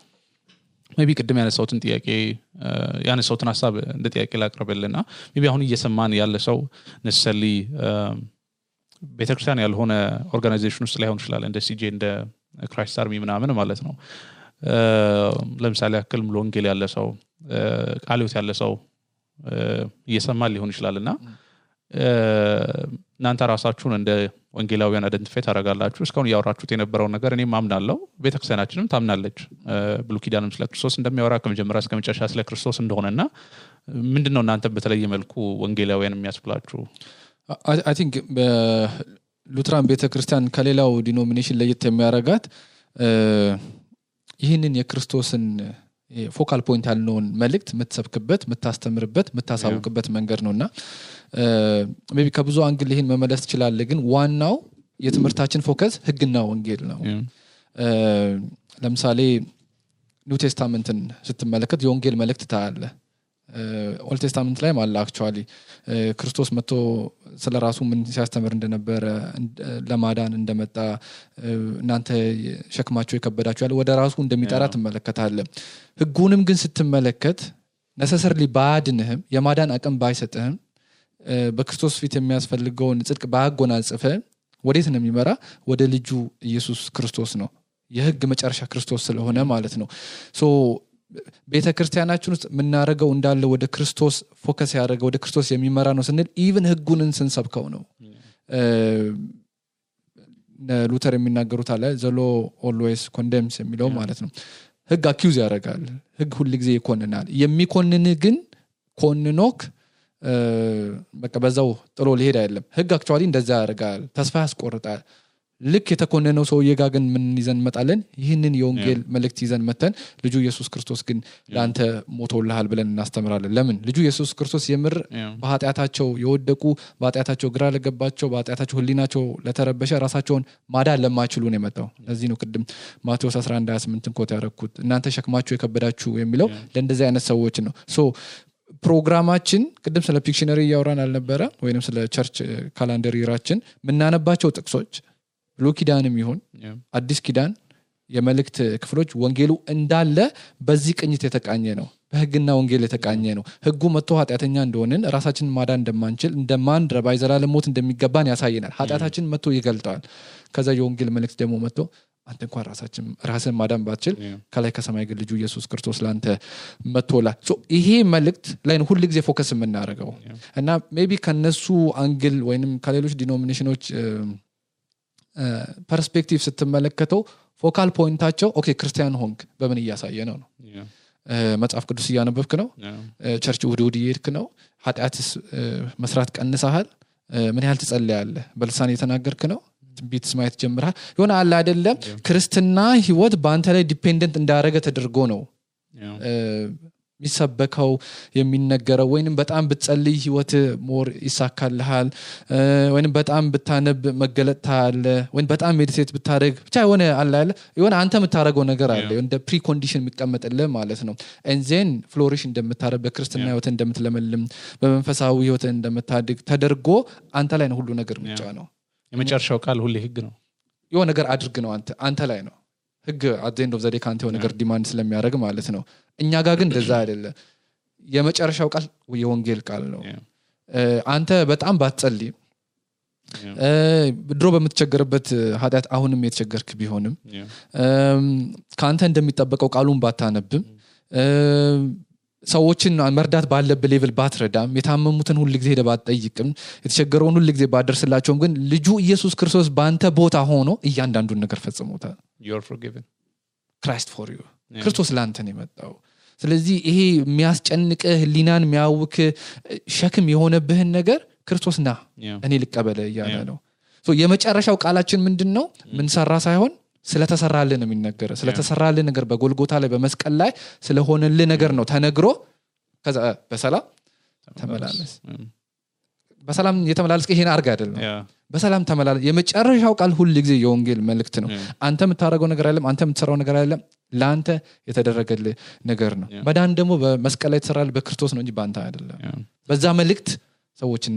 ሜቢ ቅድም ያነሳውትን ሐሳብ እንደ ጥያቄ ላቅርብልና ሜቢ አሁን እየሰማን ያለ ሰው ነሰሊ ቤተክርስቲያን ያልሆነ ኦርጋናይዜሽን ውስጥ ላይሆን ይችላል እንደ ሲጄ እንደ ክራይስት አርሚ ምናምን ማለት ነው ለምሳሌ ያክል ሙሉ ወንጌል ያለ ሰው ቃልዮት ያለ ሰው እየሰማን ሊሆን ይችላልና እናንተ ራሳችሁን እንደ ወንጌላውያን አይደንቲፋይ ታደርጋላችሁ እስካሁን ያወራችሁት የነበረው ነገር እኔ ማምናለሁ ቤተክርስቲያናችንም ታምናለች ብሉይ ኪዳንም ስለ ክርስቶስ እንደሚያወራ ከመጀመሪያ እስከ መጨረሻ ስለ ክርስቶስ እንደሆነና ምንድነው እናንተ በተለየ መልኩ ወንጌላውያን የሚያስብላችሁ I think ሉትራን ቤተክርስቲያን ከሌላው ዲኖሚኔሽን ለየት የሚያረጋት ይህንን የክርስቶስን ፎካል ፖይንት ያልነውን መልእክት የምትሰብክበት የምታስተምርበት የምታሳውቅበት መንገድ ነውና ሜቢ ከብዙ አንግል ይሄን መመለስ ይችላል ግን ዋናው የትምህርታችን ፎከስ ህግና ወንጌል ነው ለምሳሌ ኒው ቴስታመንትን ስትመለከት የወንጌል መልእክት ታያለ ኦልድ ቴስታመንት ላይ ማለት አክቹአሊ ክርስቶስ መጥቶ ስለራሱ ምን ሲያስተምር እንደነበረ ለማዳን እንደመጣ እናንተ ሸክማቸው የከበዳችሁ ያለ ወደ ራሱ እንደሚጠራ ትመለከታለህ ህጉንም ግን ስትመለከት necessarily ባድንህም የማዳን አቅም ባይሰጥህም በክርስቶስ ፊት የሚያስፈልገውን ጽድቅ ባያጎናጽፈ ወዴት ነው የሚመራ ወደ ልጁ ኢየሱስ ክርስቶስ ነው የህግ መጨረሻ ክርስቶስ ስለሆነ ማለት ነው ሶ ቤተክርስቲያናችን ውስጥ ምናረገው እንዳለ ወደ ክርስቶስ ፎከስ ያደረገው ወደ ክርስቶስ የሚመራ ነው ስንል ኢቭን ህጉንን ስንሰብከው ነው ሉተር የሚናገሩት አለ ዘ law always condemns የሚለው ማለት ነው ህግ አኪዩዝ ያደርጋል ህግ ሁሉ ጊዜ ይኮንናል የሚኮንን ግን ኮንኖክ በቃ በዛው ጥሎ ሊሄድ አይደለም ህግ አክቹአሊ እንደዛ ያደርጋል ተስፋ ያስቆርጣል ልክ የተኮነነው ሰውዬ ጋር ግን ምን ይዘን መጣለን ይህንን የወንጌል መልእክት ይዘን መተን ልጁ ኢየሱስ ክርስቶስ ግን ላንተ ሞቶልሃል ብለን እናስተምራለን ለምን ልጁ ኢየሱስ ክርስቶስ የምር በኃጢአታቸው የወደቁ በኃጢአታቸው ግራ ለገባቸው በኃጢአታቸው ህሊናቸው ለተረበሸ ራሳቸውን ማዳን ለማይችሉ ነው የመጣው ለዚህ ነው ቅድም ማቴዎስ 11:28 ኮት ያረኩት እናንተ ሸክማችሁ የከበዳችሁ የሚለው ለእንደዚህ አይነት ሰዎች ነው ሶ ፕሮግራማችን ቅድም ስለ ፒክሽነሪ ያወራን አልነበረ ወይንም ስለ ቸርች ካላንደር ይራችን ምናነባቸው ጥቅሶች ብሉይ ኪዳንም ይሁን አዲስ ኪዳን የመልእክት ክፍሎች ወንጌሉ እንዳለ በዚህ ቅኝት የተቃኘ ነው በህግና ወንጌል የተቃኘ ነው ህጉ መጥቶ ኃጢአተኛ እንደሆነን ራሳችንን ማዳን እንደማንችል እንደማንረባ የዘላለም ሞት እንደሚገባን ያሳየናል ኃጢአታችን መጥቶ ይገልጣል ከዛ የወንጌል መልእክት ደግሞ መጥቶ አንተ እንኳን ራስን ማዳን ባትችል ከላይ ከሰማይ ግን ልጁ ኢየሱስ ክርስቶስ ላንተ መጥቶላ ሶ ይሄ መልእክት ላይ ነው ሁሉ ጊዜ ፎከስ የምናደርገው እና ሜቢ ከነሱ አንግል ወይንም ከሌሎች ዲኖሚኔሽኖች ፐርስፔክቲቭ ስትመለከተው ፎካል ፖይንታቸው ኦኬ ክርስቲያን ሆንክ በምን እያሳየ ነው መጽሐፍ ቅዱስ እያነበብክ ነው ቸርች ውድ ይሄድክ ነው ኃጢአትስ መስራት ቀንሰሃል ምን ያህል ትጸልያለህ በልሳን እየተናገርክ ነው ትንቢት ማየት ጀምረሃል የሆነ አለ አይደለም ክርስትና ህይወት በአንተ ላይ ዲፔንደንት እንዳደረገ ተደርጎ ነው ሚሰበከው የሚነገረው ወይንም በጣም ብትጸልይ ህይወት ሞር ይሳካልሃል ወይንም በጣም ብታነብ መገለጥታል ወይንም በጣም ሜዲቴት ብታደርግ ብቻ የሆነ አለ የሆነ አንተ የምታረገው ነገር አለ እንደ ፕሪ ኮንዲሽን የሚቀመጥልህ ማለት ነው and then flourish እንደምታረግ በክርስትና ህይወት እንደምትለመልም በመንፈሳዊ ህይወት እንደምታድግ ተደርጎ አንተ ላይ ነው ሁሉ ነገር ምጫ ነው የመጨረሻው ቃል ሁሉ ህግ ነው የሆነ ነገር አድርግ ነው አንተ ላይ ነው ህግ at the end of the day ካንተ የሆነ ነገር ዲማንድ ስለሚያደርግ ማለት ነው እኛ ጋር ግን እንደዛ አይደለም የመጨረሻው ቃል የወንጌል ቃል ነው አንተ በጣም ባትጸልይ ድሮ በምትቸገርበት ኃጢአት አሁንም የተቸገርክ ቢሆንም ካንተ እንደሚጠበቀው ቃሉን ባታነብም ሰዎችን መርዳት ባለበት ሌቭል ባትረዳም የታመሙትን ሁሉ ጊዜ ሄደ ባትጠይቅም የተቸገረውን ሁሉ ጊዜ ባደርስላቸውም ግን ልጁ ኢየሱስ ክርስቶስ ባንተ ቦታ ሆኖ እያንዳንዱን ነገር ፈጽሞታል you're forgiven Christ for you ክርስቶስ ላንተ ነው የመጣው ስለዚህ ይሄ የሚያስጨንቅህ ህሊናን የሚያውክ ሸክም የሆነብህን ነገር ክርስቶስና እኔ ልቀበለ እያለ ነው ሶ የመጨረሻው ቃላችን ምንድነው ምን ሰራ ሳይሆን ስለተሰራልን ነው የሚነገረው ስለተሰራልን ነገር በጎልጎታ ላይ በመስቀል ላይ ስለሆነልን ነገር ነው ተነግሮ ከዛ በሰላም ተመላለስ በሰላም የተመላለስከ ይሄን አርጋ አይደለም በሰላም ተመላለስ የመጨረሻው ቃል ሁሉ ጊዜ የወንጌል መልእክት ነው አንተ የምታረገው ነገር አይደለም አንተ የምትሰራው ነገር አይደለም ላንተ የተደረገልህ ነገር ነው መዳን ደግሞ በመስቀል ላይ ተሰራል በክርስቶስ ነው እንጂ ባንተ አይደለም በዛ መልእክት ሰዎችን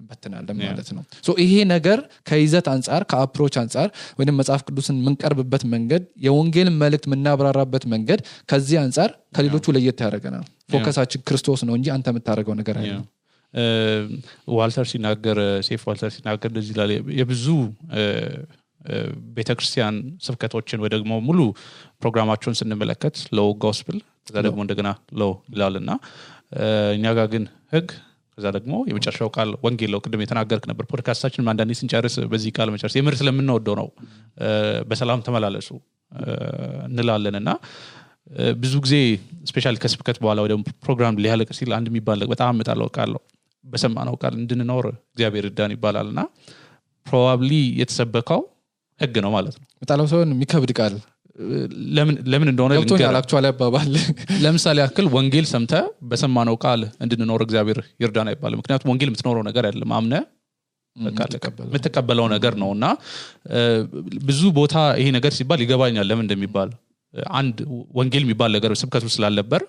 በተናለም ማለት ነው ሶ ይሄ ነገር ከይዘት አንፃር ከአፕሮች አንፃር ወይንም መጽሐፍ ቅዱስን ምንቀርብበት መንገድ የወንጌል መልእክት ምናብራራበት መንገድ ከዚህ አንፃር ከሌሎቹ ለየት ያደርገናል ፎከሳችን ክርስቶስ ነው እንጂ አንተ የምታረገው ነገር አይደለም ዋልተር ሲናገር ሴፍ ዋልተር ሲናገር እንደዚህ ይላል የብዙ ቤተክርስቲያን ስብከቶችን ወይ ደግሞ ሙሉ ፕሮግራማቸውን ስንመለከት ሎው ጎስፕል ከዛ ደግሞ እንደገና ሎው ይላልና እኛ ጋር ግን ህግ ከዛ ደግሞ የመጨረሻው ቃል ወንጌል ነው ቅድም የተናገርክ ነበር ፖድካስታችን አንዳንዴ ስንጨርስ በዚህ ቃል መጨረስ የምር ስለምንወደው ነው በሰላም ተመላለሱ እንላለንና ብዙ ጊዜ ስፔሻሊ ከስብከት በኋላ ወይ ደግሞ ፕሮግራም ሊያልቅ ሲል አንድ የሚባል በጣም መጣለው ቃል ነው በሰማነው ቃል እንድንኖር እግዚአብሔር ይርዳን ይባላልና ፕሮባብሊ የተሰበከው ህግ ነው ማለት ነው መጣለው ሰውን የሚከብድ ቃል ለምን እንደሆነ ልንገር አክቹአሊ አባባል ለምሳሌ ያክል ወንጌል ሰምተ በሰማነው ቃል እንድንኖር እግዚአብሔር ይርዳና ይባላል ምክንያቱም ወንጌል የምትኖረው ነገር አይደለም አምነ የምትቀበለው ነገር ነውና ብዙ ቦታ ይሄ ነገር ሲባል ይገባኛል ለምን እንደሚባል አንድ ወንጌል የሚባል ነገር ስብከቱ ስላለበር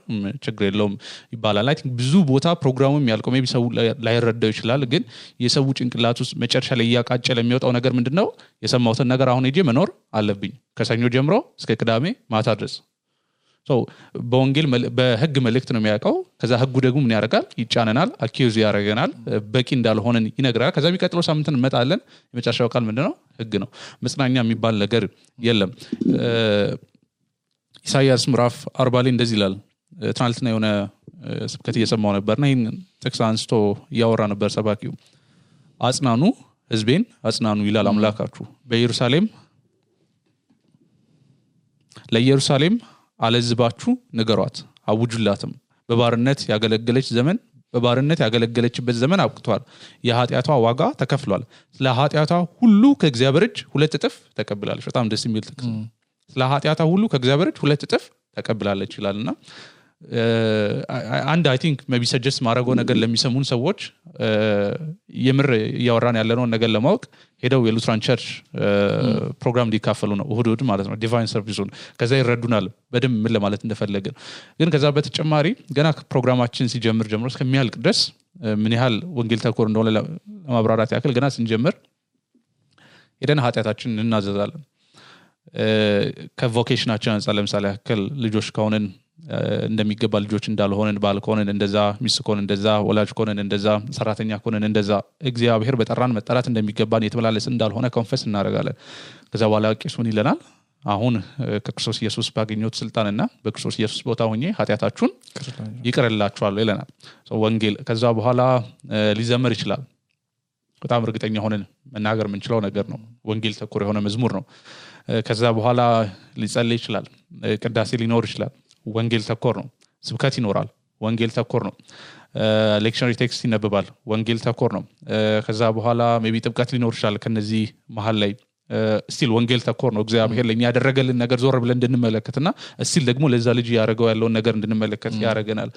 ችግር የለውም ይባላል አይ ቲንክ ብዙ ቦታ ፕሮግራሙም ያልቀው ሜቢ ሰው ላይረዳው ይችላል ግን የሰው ጭንቅላት ውስጥ መጨረሻ ላይ ያቃጨለ የሚወጣው ነገር ምንድነው የሰማሁትን ነገር አሁን ሄጄ መኖር አለብኝ ከሰኞ ጀምሮ እስከ ቅዳሜ ማታ ድረስ በወንጌል በህግ መልእክት ነው የሚያውቀው ከዛ ህጉ ደግሞ ምን ያደርጋል ይጫነናል አኪዩዝ ያደርገናል በቂ እንዳልሆነን ይነግራል ከዛ የሚቀጥለው ሳምንት እንመጣለን የመጨረሻው ቃል ምንድነው ህግ ነው መጽናኛ የሚባል ነገር የለም ኢሳይያስ ምዕራፍ 40 ላይ እንደዚህ ይላል ትናንትና የሆነ ስብከት እየሰማው ነበርና ይሄን ጥቅስ አንስቶ ያወራ ነበር ሰባኪው አጽናኑ ህዝቤን አጽናኑ ይላል አምላካችሁ ለኢየሩሳሌም አለዝባችሁ ንገሯት አውጁላትም በባርነት ያገለገለችበት ዘመን አብቅቷል የኃጢያቷ ዋጋ ተከፍሏል ስለ ኃጢያቷ ሁሉ ከእግዚአብሔር እጅ 2 እጥፍ ተቀብላለች በጣም ደስ የሚል ጥቅስ ስለ ኃጢያቷ ሁሉ ከእግዚአብሔር እጅ 2 እጥፍ ተቀብላለች ይላልና አንድ አይ ቲንክ ሜቢ ሰጀስት ማድረገው ነገር ለሚሰሙን ሰዎች የምር ያወራን ያለነው ነገር ለማወቅ ሄደው የሉትራን ቸርች ፕሮግራም ሊካፈሉ ነው እሁድ ማለት ነው ዲቫይን ሰርቪሱን ከዛ ይረዱናል በደንብ ምን ለማለት እንደፈለገ ግን ከዛ በተጨማሪ ገና ፕሮግራማችን ሲጀምር ጀምሮ እስከሚያልቅ ድረስ ምን ያህል ወንጌል ተኮር እንደሆነ ለማብራራት ያክል ገና ስንጀምር ሄደን ኃጢያታችንን እናዘዛለን ከቮኬሽናችን አንፃር ለምሳሌ ያክል ልጆች ከሆነን እንደሚገባ ልጆች እንዳልሆነን ባል ከሆነን እንደዛ ሚስት ከሆነን እንደዛ ወላጅ ከሆነን እንደዛ ሰራተኛ ከሆነን እንደዛ እግዚአብሔር በጠራን መጠራት እንደሚገባን የተመላለስን እንዳልሆነ ኮንፈስ እናደርጋለን ከዛ በኋላ ቄሱን ይለናል አሁን ከክርስቶስ ኢየሱስ ባገኘሁት ስልጣንና በክርስቶስ ኢየሱስ ቦታ ሆኜ ኃጢያታችሁን ይቅርላችኋለሁ ይለናል ወንጌል ከዛ በኋላ ሊዘመር ይችላል በጣም እርግጠኛ ሆነን መናገር የምንችለው ነገር ነው ወንጌል ተኮር የሆነ መዝሙር ነው ከዛ በኋላ ሊጸልይ ይችላል ቅዳሴ ሊኖር ይችላል ወንጌል ተኮር ነው ስብከት ይኖራል ወንጌል ተኮር ነው ሌክቸር ቴክስት ይነበባል ወንጌል ተኮር ነው ከዛ በኋላ ሜቢ ጥብቀት ሊኖር ይችላል ከነዚህ መሃል ላይ ስቲል ወንጌል ተኮር ነው እግዚአብሔር ለኛ ያደረገልን ነገር ዞር ብለን እንድንመለከትና ስቲል ደግሞ ለዛ ልጅ ያደረገው ያለውን ነገር እንድንመለከት ያደርገናል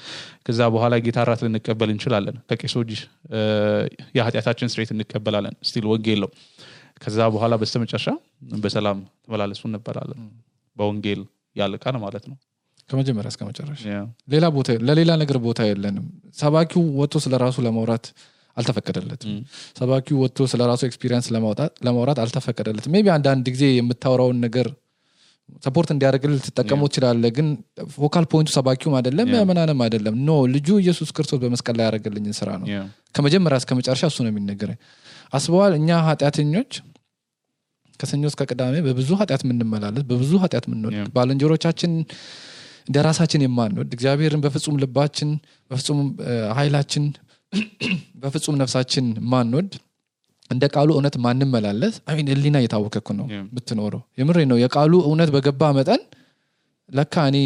ከዛ በኋላ ጌታ ራት ልንቀበል እንችላለን ከቄሶች የኃጢያታችን ስርየት እንቀበላለን ስቲል ወንጌል ነው ከዛ በኋላ በስተመጨረሻ በሰላም ተመላለሱ እንባላለን በወንጌል ያልቃል ማለት ነው ከመጀመሪያ እስከ መጨረሻ ሌላ ቦታ ለሌላ ነገር ቦታ የለንም ሰባኪው ወጥቶ ስለራሱ ለማውራት አልተፈቀደለትም ሰባኪው ወጥቶ ስለራሱ ኤክስፒሪየንስ ለማውራት አልተፈቀደለትም ሜቢ አንድ ጊዜ የምታወራውን ነገር ሰፖርት እንዲያደርግልህ ተጠቀመው ይችላል ግን ፎካል ፖይንቱ ሰባኪው አይደለም ያመናንም አይደለም ኖ ልጁ ኢየሱስ ክርስቶስ በመስቀል ላይ ያደረገልኝን ስራ ነው ከመጀመሪያ እስከ መጨረሻ እሱ ነው የሚነገረኝ አስበዋል እኛ ኃጢያተኞች ከሰኞ እስከ ቅዳሜ በብዙ ኃጢያት ምንመላለስ በብዙ ኃጢያት ምንወድቅ ባልንጀሮቻችን እንደራሳችን የማንወድ እግዚአብሔርን በፍጹም ልባችን በፍጹም ኃይላችን በፍጹም ነፍሳችን ማንወድ እንደ ቃሉ እውነት ማንመላለስ አይ እሊና የታወቀኩ ነው ብትኖረው የምሬ ነው የቃሉ እውነት በገባ መጠን ለካ እኔ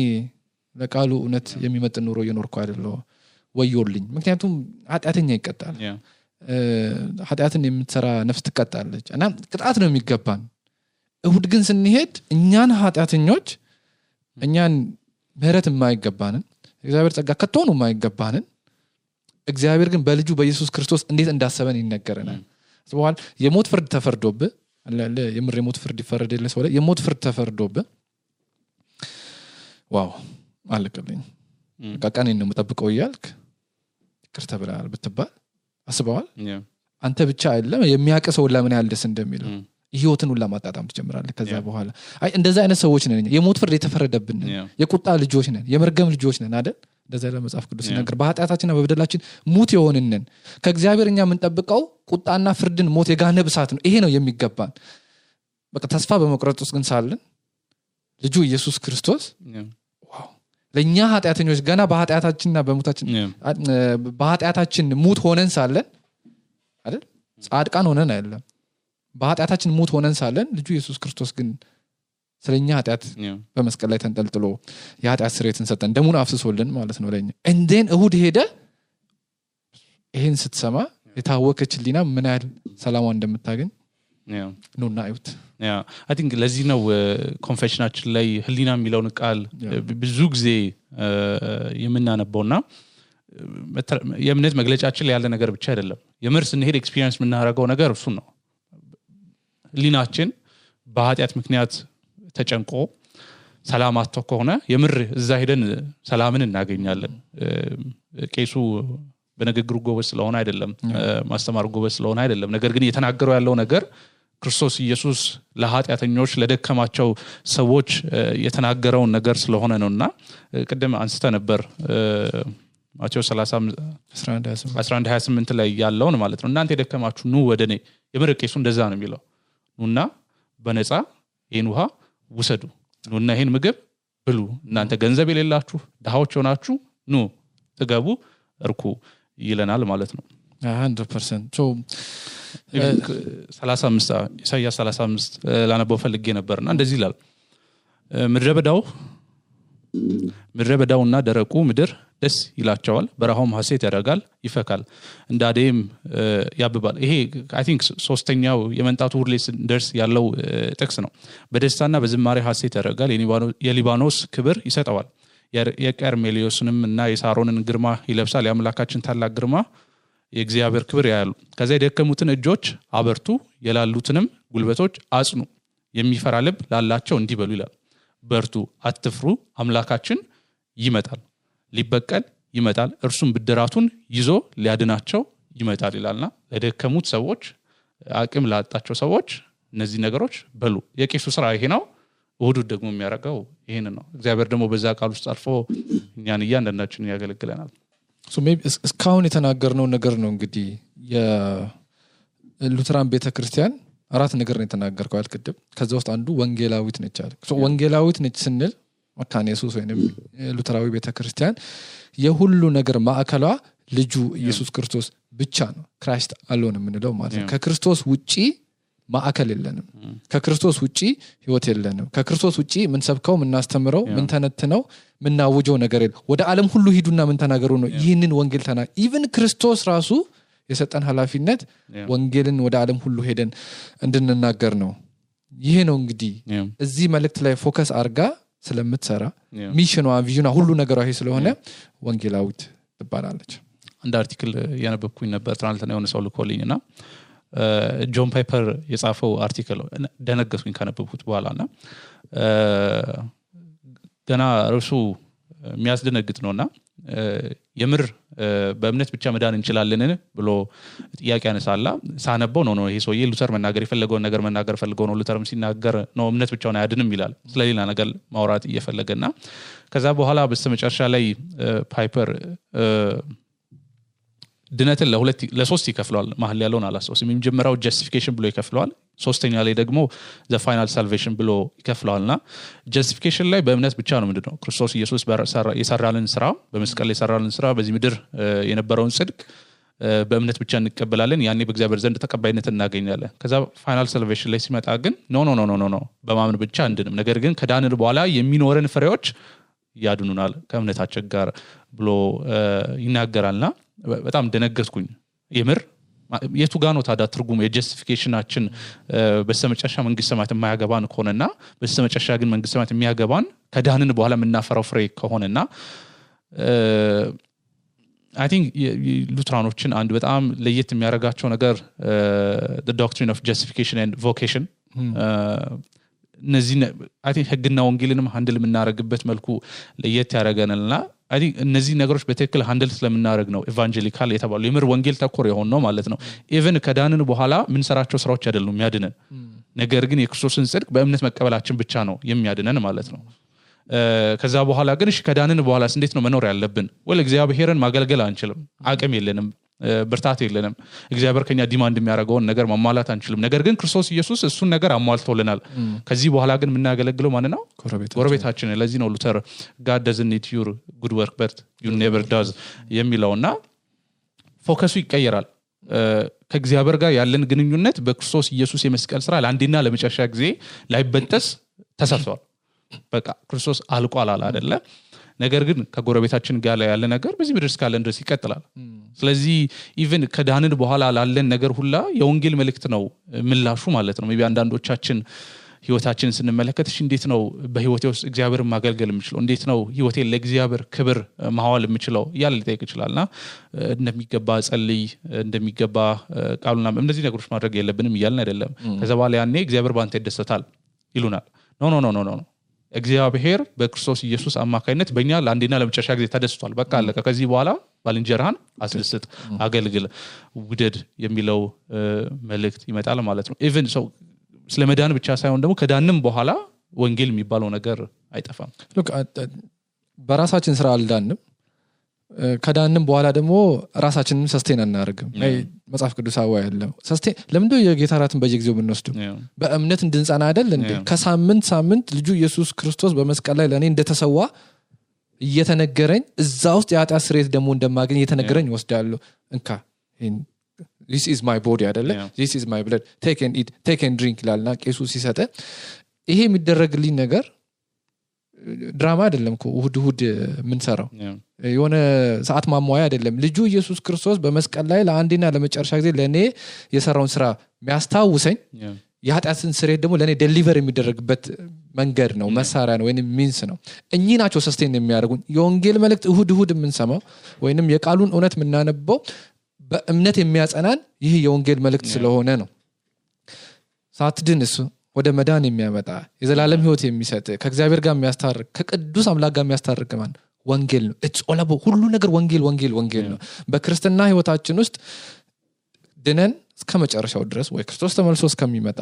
ለቃሉ እውነት የሚመጥን ኑሮ እየኖርኩ አይደለም ወዮልኝ ምክንያቱም ኃጢያተኛ ይቀጣል ኃጢያትን የምትሰራ ነፍስ ትቀጣለች እና ቅጣት ነው የሚገባን እሁድ ግን ስንሄድ እኛን ኃጢያተኞች እኛን ምህረት የማይገባንን እግዚአብሔር ጸጋ ከቶኑ የማይገባንን እግዚአብሔር ግን በልጁ በኢየሱስ ክርስቶስ እንዴት እንዳሰበን ይነገረናል ስለዚህ የሞት ፍርድ ተፈርዶብህ አለ የምር የሞት ፍርድ ይፈረድልህ ሰው የሞት ፍርድ ተፈርዶብህ ዋው አለቀልኝ ቃቃኔን ነው መጠብቀው ይያልክ ይቅርታ ብለሃል ብትባል አስበዋል አንተ ብቻ አይደለም የሚያቀሰው ለምን ያህል ደስ እንደሚለው ህይወትን ሁሉ ማጣጣም ትጀምራለህ ከዛ በኋላ አይ እንደዛ አይነት ሰዎች ነን የሞት ፍርድ የተፈረደብን የቁጣ ልጆች ነን የመርገም ልጆች ነን አይደል እንደዛ ለመጽሐፍ ቅዱስ ነገር በኃጢያታችንና በበደላችን ሙት የሆንነን ከእግዚአብሔርኛ የምንጠብቀው ቁጣና ፍርድን ሞት የጋነብ እሳት ነው ይሄ ነው የሚገባን በቃ ተስፋ በመቁረጥ ውስጥ ግን ሳለን ልጁ ኢየሱስ ክርስቶስ ዋው ለኛ ኃጢያተኞች ገና በኃጢያታችንና በሙታችን በኃጢያታችን ሙት ሆነን ሳለን አይደል ጻድቃን ሆነን አይደለም በኃጢያታችን ሙት ሆነን ሳለን ልጁ ኢየሱስ ክርስቶስ ግን ስለኛ ኃጢያት በመስቀል ላይ ተንጠልጥሎ የኃጢያት ስርየትን ሰጠን ደሙን አፍስሶልን ማለት ነው ለኛ እንደን እሁድ ሄደ ይሄን ስትሰማ የታወከች ሊና ምን ያህል ሰላሟ እንደምታገኝ ኑና እዩት I think ለዚህ ነው ኮንፌሽናችን ላይ ህሊና የሚለውን ቃል ብዙ ጊዜ የምናነበውና የእምነት መግለጫችን ላይ ያለ ነገር ብቻ አይደለም የምር ስንሄድ ኤክስፒሪየንስ የምናደርገው ነገር እሱ ነው ህሊናችን በኃጢአት ምክንያት ተጨንቆ ሰላም አጥቶ ከሆነ የምር እዛ ሄደን ሰላምን እናገኛለን ቄሱ በንግግሩ ጎበዝ ስለሆነ አይደለም ማስተማር ጎበዝ ስለሆነ አይደለም ነገር ግን እየተናገረው ያለው ነገር ክርስቶስ ኢየሱስ ለኃጢአተኞች ለደከማቸው ሰዎች የተናገረው ነገር ስለሆነ ነውና ቀደም አንስተ ነበር ማቴዎስ 11:28 ላይ ያለውን ማለት ነው እናንተ የደከማችሁ ኑ ወደኔ የምር ቄሱ እንደዛ ነው የሚለው ኑና በነፃ ይሄን ውሃ ውሰዱ ኑና ይሄን ምግብ ብሉ እናንተ ገንዘብ የሌላችሁ ድሃዎች ሆናችሁ ኑ ተገቡ እርኩ ይለናል ማለት ነው 100% so 35 ኢሳይያስ 35 ላነበው ፈልጌ ነበርና እንደዚህ ይላል ምድረ በዳውና ደረቁ ምድር ደስ ይላቸዋል በረሃውም ሐሴት ያደርጋል ይፈካል እንዳዴም ያብባል ይሄ አይ ቲንክ ሶስተኛው የመንጣቱ ሁርሌስ ደርስ ያለው ጥቅስ ነው በደስታና በዝማሬ ሐሴት ያደርጋል የሊባኖስ ክብር ይሰጠዋል የቀርሜሊዮስንም እና የሳሮንን ግርማ ይለብሳል የአምላካችን ታላቅ ግርማ የእግዚአብሔር ክብር ያያሉ ከዛ የደከሙትን እጆች አበርቱ የላሉትንም ጉልበቶች አጽኑ የሚፈራ ልብ ላላቸው እንዲበሉ ይላል በርቱ አትፍሩ አምላካችን ይመጣል ሊበቀል ይመጣል እርሱም ብድራቱን ይዞ ሊያድናቸው ይመጣል ይላልና ለደከሙት ሰዎች አቅም ላጣቸው ሰዎች እነዚህ ነገሮች በሉ የቄሱ ስራ ይሄ ነው እሁድ ደግሞ የሚያረጋው ይሄን ነው እግዚአብሔር ደግሞ በዛ ቃል ውስጥ አልፎ እኛን እያንዳንዳችንን ያገለግለናል so maybe እስካሁን የተናገርነው ነገር ነው እንግዲህ የሉተራን ቤተክርስቲያን አራት ነገር ነው የተናገርከው አልከደም ከዛ ውስጥ አንዱ ወንጌላዊት ነች አለ so ወንጌላዊት ነች ስንል መካነ ኢየሱስ ወይንም ሉተራዊ ቤተክርስቲያን የሁሉ ነገር ማዕከሏ ልጁ ኢየሱስ ክርስቶስ ብቻ ነው ክራይስት አሎን የምንለው ማለት ነው ከክርስቶስ ውጪ ማዕከል የለንም ከክርስቶስ ውጪ ህይወት የለንም ከክርስቶስ ውጪ ምን ሰብከው ምን እናስተምረው ምን ተነትነው ምን ናውጆው ነገር የለም ወደ ዓለም ሁሉ ሂዱና ምን ተናገሩ ነው ይህንን ወንጌል ኢቭን ክርስቶስ ራሱ የሰጠን ኃላፊነት ወንጌልን ወደ ዓለም ሁሉ ሄደን እንድንናገር ነው ይሄ ነው እንግዲህ እዚህ መልእክት ላይ ፎከስ አርጋ ስለምትሰራ ሚሽኗ ቪዥኗ ሁሉ ነገሯ ይሄ ስለሆነ ወንጌላዊት ትባላለች አንድ አርቲክል ያነበብኩኝ ነበር ትናንትና የሆነ ሰው ልኮልኝና ጆን ፓይፐር የጻፈው አርቲክል ደነገጥኩኝ ካነበብኩት በኋላና ገና እርሱ የሚያስደነግጥ ነውና የምር በእምነት ብቻ መዳን እንችላለን ብሎ ጥያቄ ያነሳላ ሳነበው ነው ይሄ ሰውዬ ሉተር መናገር የፈለገው ነገር መናገር ፈልገው ነው ሉተርም ሲናገር ነው እምነት ብቻውን አያድንም ይላል ስለሌላ ነገር ማውራት እየፈለገና ከዛ በኋላ በስተመጨረሻ ላይ ፓይፐር ድነትን ለሶስት ይከፍለዋል መሐል ያለውን አላስታውስም የመጀመሪያው ጀስቲፊኬሽን ብሎ ይከፍለዋል ሶስተኛ ላይ ደግሞ the final salvation ብሎ ይከፍለዋልና ጀስቲፊኬሽን ላይ በእምነት ብቻ ነው ምንድነው ክርስቶስ ኢየሱስ የሰራልን ስራ በመስቀል የሰራልን ስራ በዚህ ምድር የነበረውን ጽድቅ በእምነት ብቻ እንቀበላለን ያኔ በእግዚአብሔር ዘንድ ተቀባይነት እናገኛለን ከዛ ፋይናል ሳልቬሽን ላይ ሲመጣ ግን ኖ በማመን ብቻ እንድንም ነገር ግን ከዳንን በኋላ የሚኖረን ፍሬዎች ያድኑናል ከእምነታችን ጋር ብሎ ይናገራልና በጣም ደነገጥኩኝ የምር የቱ ጋር ነው ታዲያ ትርጉሙ የጀስቲፊኬሽናችን በስተመጨረሻ መንግስተ ሰማያት የማያገባን ከሆነና በስተመጨረሻ ግን መንግስተ ሰማያት የሚያገባን ከዳንን በኋላ የምናፈራው ፍሬ ከሆነና I think ሉትራኖችን አንድ በጣም ለየት የሚያረጋቸው ነገር the doctrine of justification and vocation እነዚህ I think ህግና ወንጌልንም ሃንድል የምናረግበት መልኩ ለየት ያረጋናልና I think እነዚህ ነገሮች በትክክል ሃንድል ስለምናረግ ነው ኢቫንጀሊካል የተባለው የምር ወንጌል ተኮር የሆነ ነው ማለት ነው ኢቭን ከዳንን በኋላ ምን ሰራቸው ስራዎች አይደሉም የሚያድነን ነገር ግን የክርስቶስን ጽድቅ በእምነት መቀበላችን ብቻ ነው የሚያድነን ማለት ነው ከዛ በኋላ ግን እሺ ከዳንን በኋላ እንዴት ነው መኖር ያለብን ወለ እግዚአብሔርን ማገልገል አንችልም አቅም የለንም ብርታት የለንም እግዚአብሔር ከኛ ዲማንድ የሚያደርገው ነገር ማሟላት አንችልም ነገር ግን ክርስቶስ ኢየሱስ እሱን ነገር አሟልቶልናል ከዚህ በኋላ ግን የምናገለግለው ማን ነው ጎረቤታችን ለዚህ ነው ሉተር God doesn't need your good work but you never does የሚለውና ፎከሱ ይቀየራል ከእግዚአብሔር ጋር ያለን ግንኙነት በክርስቶስ ኢየሱስ የመስቀል ስራ ለአንዴና ለመጨረሻ ጊዜ ላይበጠስ ተሰርቷል በቃ ክርስቶስ አልቋል አይደለ ነገር ግን ከጎረቤታችን ጋር ያለ ነገር በዚህ ምድር እስካለን ድረስ ይቀጥላል ስለዚህ ኢቭን ከዳንን በኋላ ላለን ነገር ሁላ የወንጌል መልእክት ነው ምላሹ ማለት ነው ሜቢ አንዳንዶቻችን ህይወታችንን ስንመለከት እንዴት ነው በህይወቴ ውስጥ እግዚአብሔርን ማገልገል የምችለው እንዴት ነው ህይወቴን ለእግዚአብሔር ክብር ማዋል የምችለው ያለ ሊጠይቅ ይችላልና እንደሚገባ ጸልይ እንደሚገባ ቃሉና እነዚህ ነገሮች ማድረግ የለብንም ይያልን አይደለም ከዛ በኋላ ያኔ እግዚአብሔር ባንተ ይደሰታል ይሉናል ኖ እግዚአብሔር በክርስቶስ ኢየሱስ አማካይነት በእኛ ለአንዴና ለመጨረሻ ጊዜ ተደስቷል በቃ አለቀ ከዚህ በኋላ ባልንጀራህን አስደስት አገልግል ውደድ የሚለው መልእክት ይመጣል ማለት ነው ኢቭን ሰው ስለመዳን ብቻ ሳይሆን ደግሞ ከዳንም በኋላ ወንጌል የሚባለው ነገር አይጠፋም look በራሳችን ስራ አልዳንም ከዳንም በኋላ ደግሞ ራሳችንን ሰስቴን አናርግም መጽሐፍ ቅዱሳዊ አይደለም ሰስቴን ለምንድነው የጌታ ራትን በየጊዜው የምንወስደው በእምነት እንድንጸና አይደል እንዴ ከሳምንት ልጁ ኢየሱስ ክርስቶስ በመስቀል ላይ ለኔ እንደተሰዋ እየተነገረኝ እዛ ውስጥ የኃጢአት ስርየት ደግሞ እንደማገኝ እየተነገረኝ ወስዳለሁ እንካ this is my body አይደለ this is my blood take and eat take and drink ላልና ቄሱ ሲሰጠ ይሄ የሚደረግልኝ ነገር ድራማ አይደለም እኮ እሁድ ምን ሰራው የሆነ ሰዓት ማሟያ አይደለም ልጁ ኢየሱስ ክርስቶስ በመስቀል ላይ ለአንዴና ለመጨረሻ ጊዜ ለኔ የሰራውን ስራ የሚያስታውሰኝ የኃጢአትን ስርየት ደግሞ ለኔ ዴሊቨር የሚደረግበት መንገድ ነው መሳሪያ ነው ወይንም ሚንስ ነው እኚህ ናቸው ሰስቴን የሚያደርጉን የወንጌል መልእክት እሁድ የምንሰማው ወይንም የቃሉን እውነት የምናነበው በእምነት የሚያጸናን ይህ የወንጌል መልእክት ስለሆነ ነው ሳትድንስ ወደ መዳን የሚያመጣ የዘላለም ህይወት የሚሰጥ ከእግዚአብሔር ጋር የሚያስታርቅ ከቅዱስ አምላክ ጋር የሚያስታርቅ ማን ወንጌል ነው it's all about ሁሉ ነገር ወንጌል ነው በክርስትና ህይወታችን ውስጥ ድነን እስከመጨረሻው ድረስ ወይ ክርስቶስ ተመልሶ እስከሚመጣ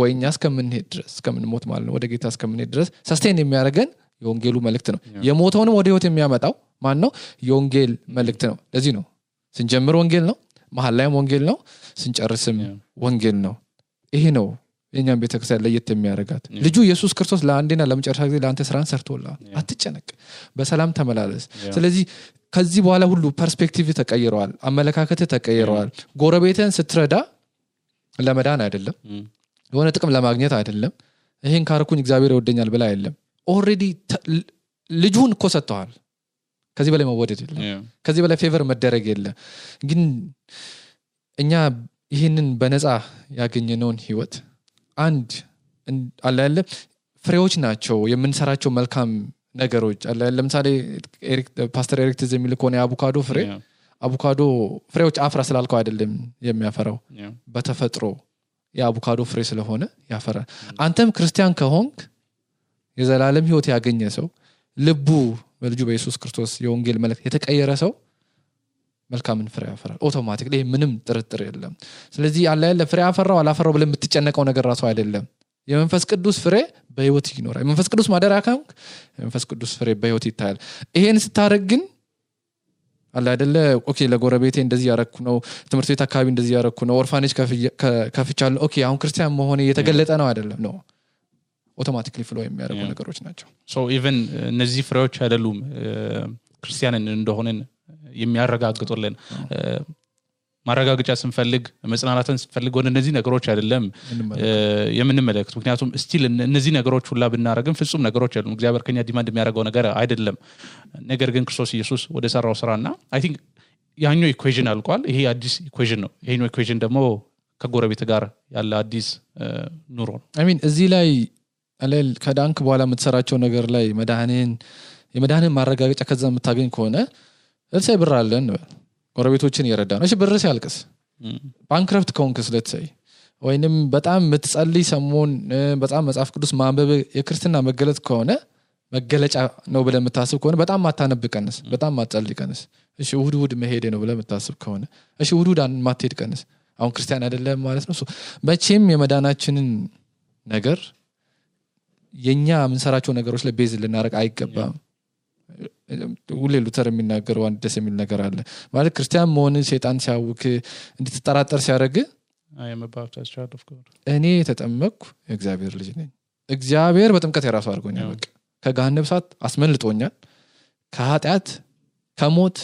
ወይ እኛ እስከምንሄድ ድረስ እስከምንሞት ማለት ነው ወደ ጌታ እስከምንሄድ ድረስ ሰስቴን የሚያደርገን የወንጌሉ መልእክት ነው የሞተውንም ወደ ህይወት የሚያመጣው ማን ነው የወንጌል መልእክት ነው ለዚህ ነው ስንጀምር ወንጌል ነው መሃል ላይም ወንጌል ነው ስንጨርስም ወንጌል ነው ይሄ ነው የኛን ቤተክርስቲያን ለየት የሚያደርጋት ልጁ ኢየሱስ ክርስቶስ ለአንዴና ለመጨረሻ ጊዜ ለአንተ ስራን ሰርቶልሃል አትጨነቅ በሰላም ተመላለስ ስለዚህ ከዚህ በኋላ ሁሉ ፐርስፔክቲቭ ተቀይሯል አመለካከት ተቀይሯል ጎረቤትን ስትረዳ ለመዳን አይደለም የሆነ ጥቅም ለማግኘት አይደለም ይሄን ካርኩኝ እግዚአብሔር ይወደኛል ብላ አይደለም ኦሬዲ ልጁን እኮ ሰጥቷል ከዚህ በላይ መወደድ የለም ከዚህ በላይ ፌቨር መደረግ የለም ግን እኛ ይሄንን በነፃ ያገኘነውን ህይወት አንድ አላለ ፍሬዎች ናቸው የምንሰራቸው መልካም ነገሮች አላለ ለምሳሌ ፓስተር ኤሪክ ትዝ የሚል ከሆነ አቮካዶ ፍሬዎች አፍራ ስላልከው አይደለም የሚያፈራው በተፈጥሮ የአቮካዶ ፍሬ ስለሆነ ያፈራል አንተም ክርስቲያን ከሆንክ የዘላለም ህይወት ያገኘ ሰው ልቡ በልጁ በኢየሱስ ክርስቶስ የወንጌል መልእክት የተቀየረ ሰው መልካምን ፍሬ ያፈራል አውቶማቲክሊ ምንም ጥርጥር የለም ስለዚህ ያለ ፍሬ ያፈራው አላፈራው ብለን የምትጨነቀው ነገር ራሱ አይደለም የመንፈስ ቅዱስ ፍሬ በህይወት ይኖራል የመንፈስ ቅዱስ ማደሪያ ካንክ የመንፈስ ቅዱስ ፍሬ በህይወት ይታያል ይሄን ስታረግ ግን አለ አይደለ ኦኬ ለጎረቤቴ እንደዚህ ያረኩ ነው ትምህርት ቤት አካባቢ እንደዚህ ያረኩ ነው ኦርፋኔጅ ከፍቻለሁ ኦኬ አሁን ክርስቲያን መሆኔ የተገለጠ ነው አይደለም ነው አውቶማቲክሊ ፍሎ የሚያደርጉ ነገሮች ናቸው ሶ ኢቭን እነዚህ ፍሬዎች አይደሉም ክርስቲያንን እንደሆነን የሚያረጋግጡልን ማረጋገጫ ስንፈልግ መጽናናትን ስንፈልግ ወደ እነዚህ ነገሮች አይደለም የምንመለከት ምክንያቱም ስቲል እነዚህ ነገሮች ሁላ ብናረግም ፍጹም ነገሮች አይደሉም እግዚአብሔር ከኛ ዲማንድ የሚያደርገው ነገር አይደለም ነገር ግን ክርስቶስ ኢየሱስ ወደ ሰራው ስራና አይ ቲንክ ያኛው ኢኩዌሽን አልቋል ይሄ አዲስ ኢኩዌሽን ነው ይሄኛው ኢኩዌሽን ደግሞ ከጎረቤት ጋር ያለ አዲስ ኑሮ ነው አይ ሚን እዚህ ላይ አለል ከዳንክ በኋላ የምትሰራቸው ነገር ላይ የመዳንን ማረጋገጫ ከዛ የምታገኝ ከሆነ ለምሳሌ ብር አለን ጎረቤቶችን እየረዳ ነው እሺ ብር ሲያልቅስ ባንክረፍት ከሆንክስ ለተሰይ ወይንም በጣም የምትጸልይ ሰሞን በጣም መጽሐፍ ቅዱስ ማንበብ የክርስትና መገለጥ ከሆነ መገለጫ ነው ብለህ የምታስብ ከሆነ በጣም ማታነብቀንስ በጣም ማትጸልይቀንስ እሺ እሁድ መሄድ ነው ብለህ የምታስብ ከሆነ እሺ እሁድ ማትሄድ ቀንስ አሁን ክርስቲያን አይደለም ማለት ነው መቼም የመዳናችንን ነገር የኛ የምንሰራቸው ነገሮች ላይ ቤዝ ልናረግ አይገባም ሁሌ ሉተር የሚናገረው አንድ ደስ የሚል ነገር አለ ማለት ክርስቲያን መሆን ሸይጣን ሲያውክ እንድትጠራጠር ሲያደርግ I am a baptized child of God እኔ ተጠመቅኩ የእግዚአብሔር ልጅ ነኝ እግዚአብሔር በጥምቀት የራሱ አድርጎኛል በቃ ከገሃነም እሳት አስመልጦኛል ከኃጢአት ከሞት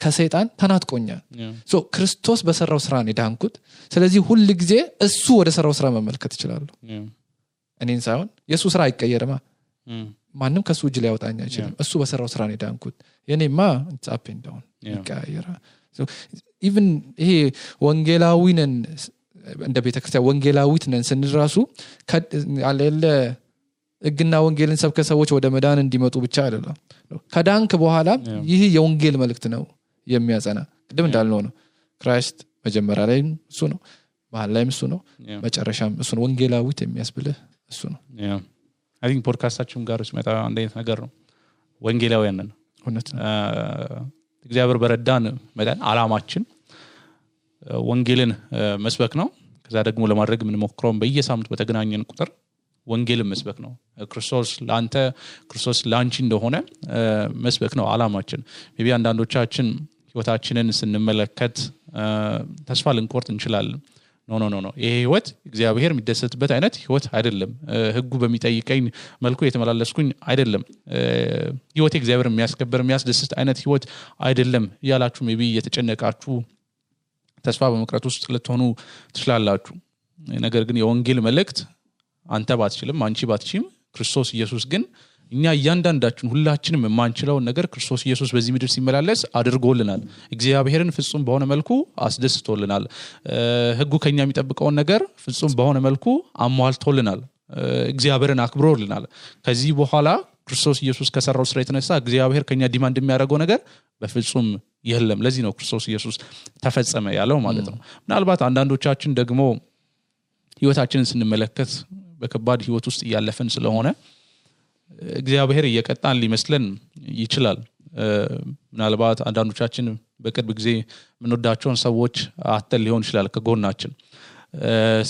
ከሰይጣን ተናጥቆኛል ሶ ክርስቶስ በሰራው ስራ ነው ዳንኩት ስለዚህ ሁሉ ጊዜ እሱ ወደ ሰራው ስራ መመልከት ይችላል እኔን ሳይሆን የሱ ስራ አይቀየርማ ማንም ከሱ እጅ ላይ ያወጣኝ አይችልም እሱ በሰራው ስራ ነው ዳንኩት የኔማ it's up and down ይቀየራ so even ይሄ ወንጌላዊነን እንደ ቤተክርስቲያን ወንጌላዊት ነን ስንራሱ አለለ እግና ወንጌልን ሰብከ ሰዎች ወደ መዳን እንዲመጡ ብቻ አይደለም ከዳንክ በኋላ ይህ የወንጌል መልእክት ነው የሚያጸና ቅድም እንዳልነው ነው ክራይስት መጀመሪያ ላይ እሱ ነው መሃል ላይ እሱ ነው መጨረሻም እሱ ነው ወንጌላዊት የሚያስብልህ እሱ ነው I think ፖድካስታችን ጋር ሲመጣ አንድ አይነት ነገር ነው ወንጌላውያን ነን እውነት ነው እግዚአብሔር በረዳን መዳን አላማችን ወንጌልን መስበክ ነው ከዛ ደግሞ ለማድረግ ምን ሞክረው በየሳምንቱ በተገናኘን ቁጥር ወንጌልን መስበክ ነው ክርስቶስ ላንተ ክርስቶስ ላንቺ እንደሆነ መስበክ ነው አላማችን maybe አንዳንዶቻችን ህይወታችንን ስንመለከት ተስፋ ልንቆርጥ እንችላለን ኖ ይሄ ህይወት እግዚአብሔር የሚደሰትበት አይነት ህይወት አይደለም ህጉ በሚጠይቀኝ መልኩ የተመላለስኩኝ አይደለም ህይወት እግዚአብሔር የሚያስከብር የሚያስደስት አይነት ህይወት አይደለም ያላችሁ maybe የተጨነቃችሁ ተስፋ በመቅረት ውስጥ ልትሆኑ ትችላላችሁ ነገር ግን የወንጌል መልእክት አንተ ባትችልም አንቺ ባትችም ክርስቶስ ኢየሱስ ግን እኛ እያንዳንዳችን ሁላችንም የማንችለው ነገር ክርስቶስ ኢየሱስ በዚህ ምድር ሲመላለስ አድርጎልናል እግዚአብሔርን ፍጹም በሆነ መልኩ አስደስቶልናል ህጉ ከኛ የሚጠብቀው ነገር ፍጹም በሆነ መልኩ አሟልቶልናል እግዚአብሔርን አክብሮልናል ከዚህ በኋላ ክርስቶስ ኢየሱስ ከሰራው ስራ የተነሳ እግዚአብሔር ከኛ ዲማንድ የሚያደርገው ነገር በፍጹም የለም ለዚህ ነው ክርስቶስ ኢየሱስ ተፈጸመ ያለው ማለት ነው ምናልባት አንዳንዶቻችን ደግሞ ህይወታችንን ስንመለከት በከባድ ህይወት ውስጥ ያለፈን ስለሆነ እግዚአብሔር እየቀጣን ሊመስለን ይችላል ምናልባት አንዳንዶቻችን በቅርብ ጊዜ ምንወዳቸውን ሰዎች አተል ሊሆን ይችላል ከጎናችን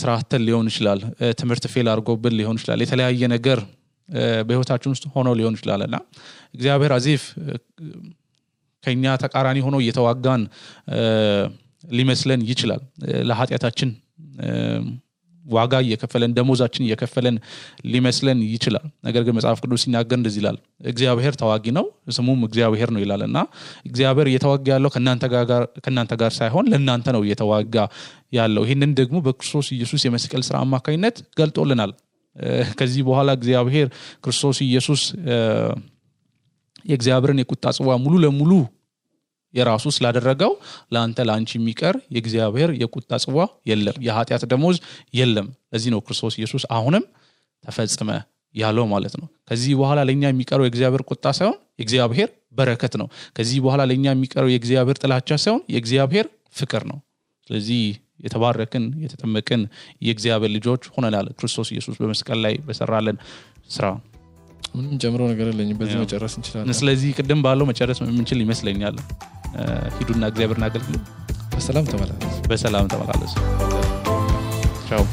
ስራ አተል ሊሆን ይችላል ትምህርት ፌል አድርጎብን ሊሆን ይችላል የተለያየ ነገር በህይወታችን ውስጥ ሆኖ ሊሆን ይችላልና እግዚአብሔር አዚፍ ከኛ ተቃራኒ ሆኖ እየተዋጋን ሊመስለን ይችላል ለኃጢያታችን ዋጋ እየከፈለን ደሞዛችን እየከፈለን ሊመስለን ይችላል ነገር ግን መጽሐፍ ቅዱስ ሲናገር እንደዚህ ይላል እግዚአብሔር ተዋጊ ነው ስሙም እግዚአብሔር ነው ይላልና እግዚአብሔር እየተዋጋ ያለው ከናንተ ጋር ሳይሆን ለናንተ ነው እየተዋጋ ያለው ይሄንን ደግሞ በክርስቶስ ኢየሱስ የመስቀል ሥራ አማካኝነት ገልጦልናል ከዚህ በኋላ እግዚአብሔር ክርስቶስ ኢየሱስ የእግዚአብሔርን የቁጣ ጽዋ ሙሉ ለሙሉ የራሱ ስላደረገው ላንተ ላንቺ የሚቀር የእግዚአብሔር የቁጣ ጽዋ የለም የኃጢያት ደሞዝ የለም ለዚህ ነው ክርስቶስ ኢየሱስ አሁንም ተፈጸመ ያለው ማለት ነው ከዚህ በኋላ ለኛ የሚቀረው የእግዚአብሔር ቁጣ ሳይሆን የእግዚአብሔር በረከት ነው ከዚህ በኋላ ለኛ የሚቀረው የእግዚአብሔር ጥላቻ ሳይሆን የእግዚአብሔር ፍቅር ነው ስለዚህ የተባረክን የተጠመቅን የእግዚአብሔር ልጆች ሆነናል ክርስቶስ ኢየሱስ በመስቀል ላይ በሰራለን ስራ ምንም ጀምሮ ነገር የለኝም በዚህ መጨረስ እንችላለን ስለዚህ ቅድም ባለው መጨረስ የምንችል ይመስለኛል ሂዱና እግዚአብሔርን አገልግሉ በሰላም ተመላለሱ ቻው